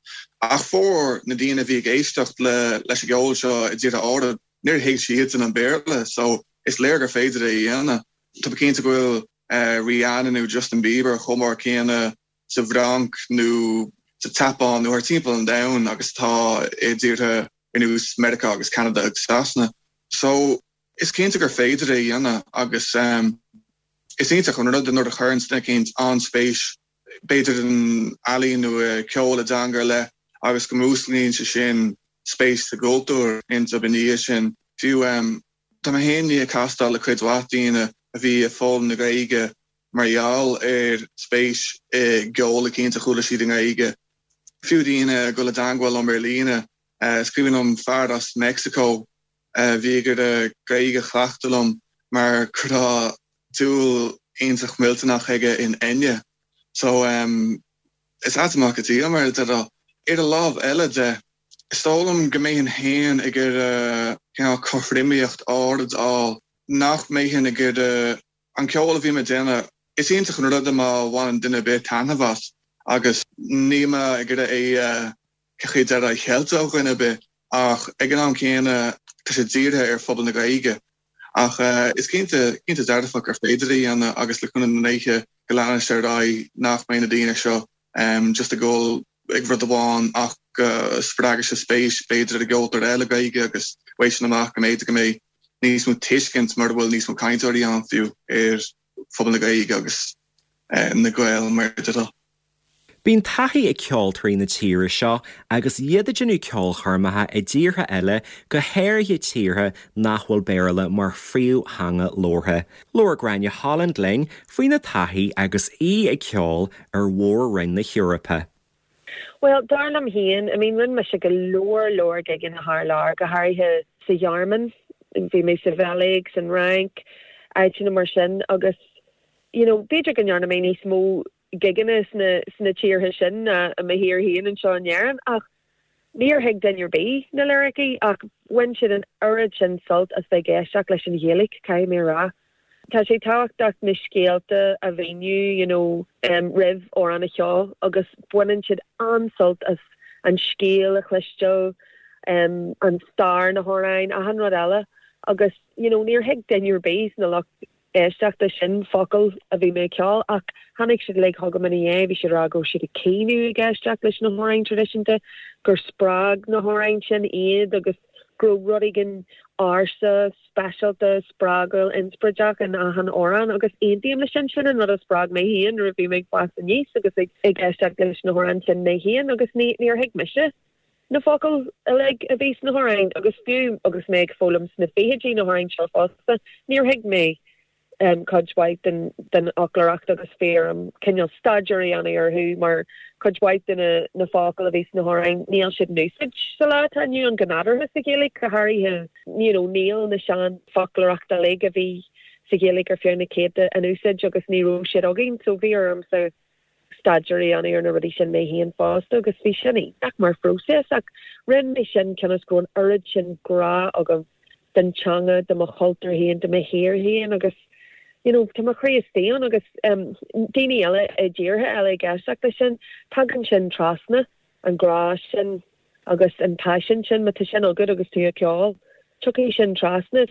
Ach formhór na daoine a bhí ag éisteacht le leis an gceol seo i dtíortha áirid, níor thuig siadsan an Béarla, so is léir gur féidir é a dhéanamh. Tá mé cinnte go bhfuil Rihanna nó Justin Bieber chomh mór céanna sa bhFrainc nó sa tSeapáin nó thar timpeall an domhain agus atá i dtíortha ar nós Meiriceá agus Ceanada agus Sasana. So, is cinnte gur féidir é a dhéanamh agus is iontach an rud é nuair a chuireann duine eicínt an-spéis b'fhéidir in ealaín nó i gceol i dteanga ar leith agus go músclaíonn sé sin spéis sa gcultúr iontu ina dhiaidh sin. Fiú, tá mé féin i ndiaidh castáil le cuid mhaith daoine a bhí ag foghlaim na Gaeilge mar gheall ar spéis i gceol eicínt a chuala siad i nGaeilge. Fiú daoine ag dul i dteangmháil liom ar líne. Is cuimhin liom fear as Meicsiceo a bhí ag iarraidh Gaeilge a chleachtadh liom mar go raibh dúil iontach millteanach aige in Enya. So is ait mac an tsaoil mar a déarfá. Ar an lámh eile de, is dóigh liom go mbeinn féin ag iarraidh cineál cothromaíocht áirid a fháil, nach mbeinn ag iarraidh An ceol a bhím ag déanamh, is iontach an rud é má bhaineann duine ar bith taitneamh as agus níl mé ag iarraidh é a, cén chaoi a déarfá, a cheilt ó dhuine ar bith ach ag an am céanna tá sé dírithe ar phobal na Gaeilge. Ach is cinnte, cinnte dearfach gur féidir é a dhéanamh agus le cúnamh na ndéithe go leanfaidh sé ar aghaidh nach mbeidh na daoine seo just ag dul ag rud amháin ach go spreagfaidh sé spéis b'fhéidir i gceoltóir eile Gaeilge agus uaidh sin amach go mb'fhéidir go mbeidh níos mó tuiscint mura bhfuil níos mó cainteoirí ann fiú ar phobal na Gaeilge agus na Gaeil mar a déarfá. Bíonn taithí ag ceoltóirí na tíre seo agus iad ag déanamh ceolchoirmeacha i dtíortha eile, go háirithe tíortha nach bhfuil Béarla mar phríomhtheanga labhartha. Labhair Gráinne Holland linn faoina taithí agus í ag ceol ar mhór-roinn na hEorpa. Bhuel, dar liom féin, I mean, rinne mise go leor leor gigeanna thar lear, go háirithe sa Ghearmáin, bhí mé sa Bheilg, san Fhrainc, áiteanna mar sin agus, you know, b'fhéidir go ndearna mé níos mó gigeanna sna, sna tíortha sin ná i mo thír féin anseo in Éirinn ach níor thuig duine ar bith na liricí ach bhain siad an oiread sin sult as bheith ag éisteacht leis an Ghaeilge, caithfidh mé a rá. Tá sé tábhachtach na scéalta a mhíniú you know roimh amhrán a cheol agus baineann siad an-sult as an scéal a chloisteáil, an stair na hamhráin, achan rud eile agus you know níor thuig duine ar bith sna lucht éisteachta sin focal a bhí mé ag ceol ach tháinig siad uilig chugam ina dhiaidh, bhí siad ag rá go raibh siad ag caoineadh ag éisteacht leis na hamhráin traidisiúnta, gur spreag na hamhráin sin iad agus go raibh rud éigin ársa, speisialta, spreagúil, inspioráideach in achan amhrán agus aontaím leis sin. Sin an rud a spreag mé féin nuair a bhí mé ag fás aníos agus ag éisteacht leis na hamhráin sin mé féin agus ní, níor thuig mise. na focail uilig a bhí sna hamhráin agus fiú agus mé ag foghlaim sna fichidí na hamhráin seo fosta, níor thuig mé cuid mhaith den den fhoclóireacht agus bhí orm cineál staidéar a dhéanamh orthu mar cuid mhaith de na na focail a bhí sna hamhráin níl siad in úsáid sa lá atá inniu ann go nádúrtha sa Ghaeilge go háirithe you know níl na sean foclóireacht uilig a bhí sa Ghaeilge ar feadh na céadta in úsáid agus ní raibh siad againn so bhí ormsa staidéar a dhéanamh ar na rudaí sin mé féin fosta agus bhí sin iontach mar phróiseas ach rinne mé sin cionn is go raibh an oiread sin grá agam don teanga, do mo chultúr féin, do mo thír féin agus you know tá mo chroí istigh ann agus um, daoine eile i dtíortha eile ag éisteacht leis sin, tagann sin trasna, an grá sin agus an paisean sin, má tá sin agat agus tú ag ceol, tiocfaidh sin trasna.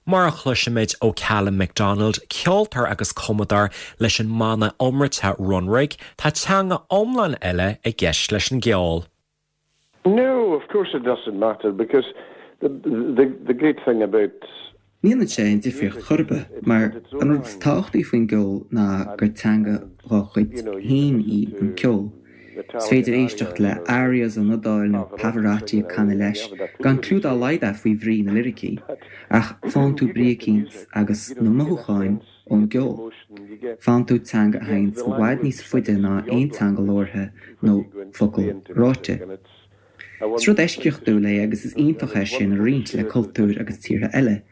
Mar a chloisimid ó Calum MacDonald, ceoltóir agus cumadóir leis an mbanna iomráiteach Runrig, tá teanga iomlán eile i gceist leis an gceol. No, of course it doesn't matter because the the the great thing about. Ní dhéanann sé aon difríocht chor ar bith, mar an rud is tábhachtaí faoin gceol ná gur teanga dá chuid féin í an ceol. Is féidir éisteacht le arias ón Iodáil nó Pavarotti ag canadh leis, gan cliú dá laghad agat faoi bhrí na liricí, ach faigheann tú brí eicínt agus na mothúcháin ón gceol. Faigheann tú teanga a théanns i bhfad níos faide ná aon teanga labhartha nó focal ráite. Is rud eisceachtúil é agus is iontach é sin a roinnt le cultúir agus tíortha eile,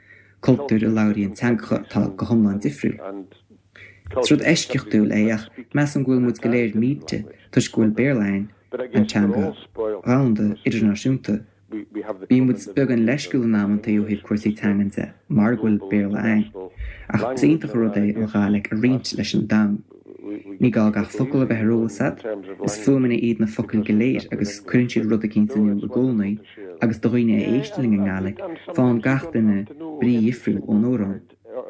cultúir a labhraíonn teangacha atá go hiomlán difriúil. Is rud eisceachtúil é ach measaim go bhfuil muid go léir millte toisc go bhfuil Béarla ann, an teanga dhomhanda idirnáisiúnta. Bíonn muid beagán leisciúil in amantaí ó thaobh cúrsaí teangan de mar go bhfuil Béarla ann, ach is iontach an rud é an Ghàidhlig a roinnt leis an domhan. Ní gá gach focal a bheith ar eolas agat, is fuaimeanna iad na focail go léir agus cuireann siad rud eicínt in iúl i gcónaí agus do dhaoine a éisteann linn i nGàidhlig, faigheann gach duine brí dhifriúil ón amhrán.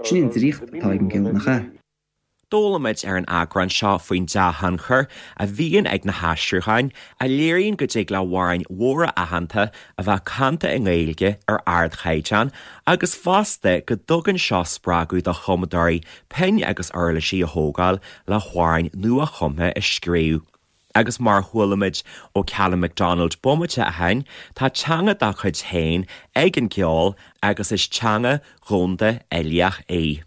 Sin an draíocht atá ag an gceol, nach ea? D'fhoghlaim muid ar an eagrán seo faoin dea-thionchar a bhíonn ag na haistriúcháin, a léiríonn go dtig le hamhráin mhóra aitheanta a bheith canta i nGaeilge ar ardchaighdeán agus fosta go dtugann seo spreagadh do chumadóirí pinn agus uirlisí a thógáil le hamhráin nua-chumtha a scríobh. Agus mar a chuala muid ó Calum MacDonald bomaite ó shin, tá teanga dá cuid féin ag an gceol agus is teanga dhomhanda uilíoch í.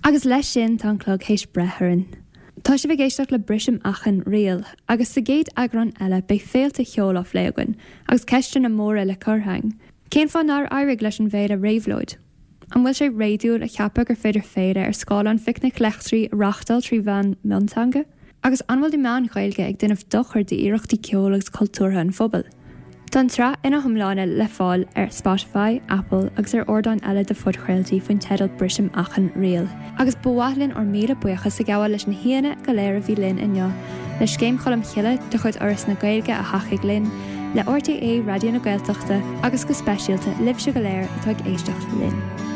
Agus leis sin tá an clog théis breith orainn. Tá sibh ag éisteacht le Brisim Achan Riail, agus sa gcéad eagrán eile beidh féilte cheoil á phlé againn, agus ceisteanna móra le cur againn. Cén fáth nár éirigh leis an bhféile Réabhlóid? An bhfuil sé réadúil a cheapadh gur féidir féile ar scála an Phicnic Leictrigh a reáchtáil trí mheán mionteanga? Agus an bhfuil na meáin Ghaeilge ag déanamh dochar d'iarrachtaí ceoil agus cultúrtha an phobail? Tá an tsraith ina hiomláine le fáil ar Spotify, Apple agus ar ardáin eile de phodchraoltaí faoin teideal Brisim Achan Riail. Agus ba mhaith linn ár míle buíochas a ghabháil leis na haíonna go léir a bhí linn inniu, le Scéim Cholm Chille de chuid Fhoras na Gaeilge a thacaigh linn, le RTÉ Raidió na Gaeltachta agus go speisialta libhse go léir atá ag éisteacht linn.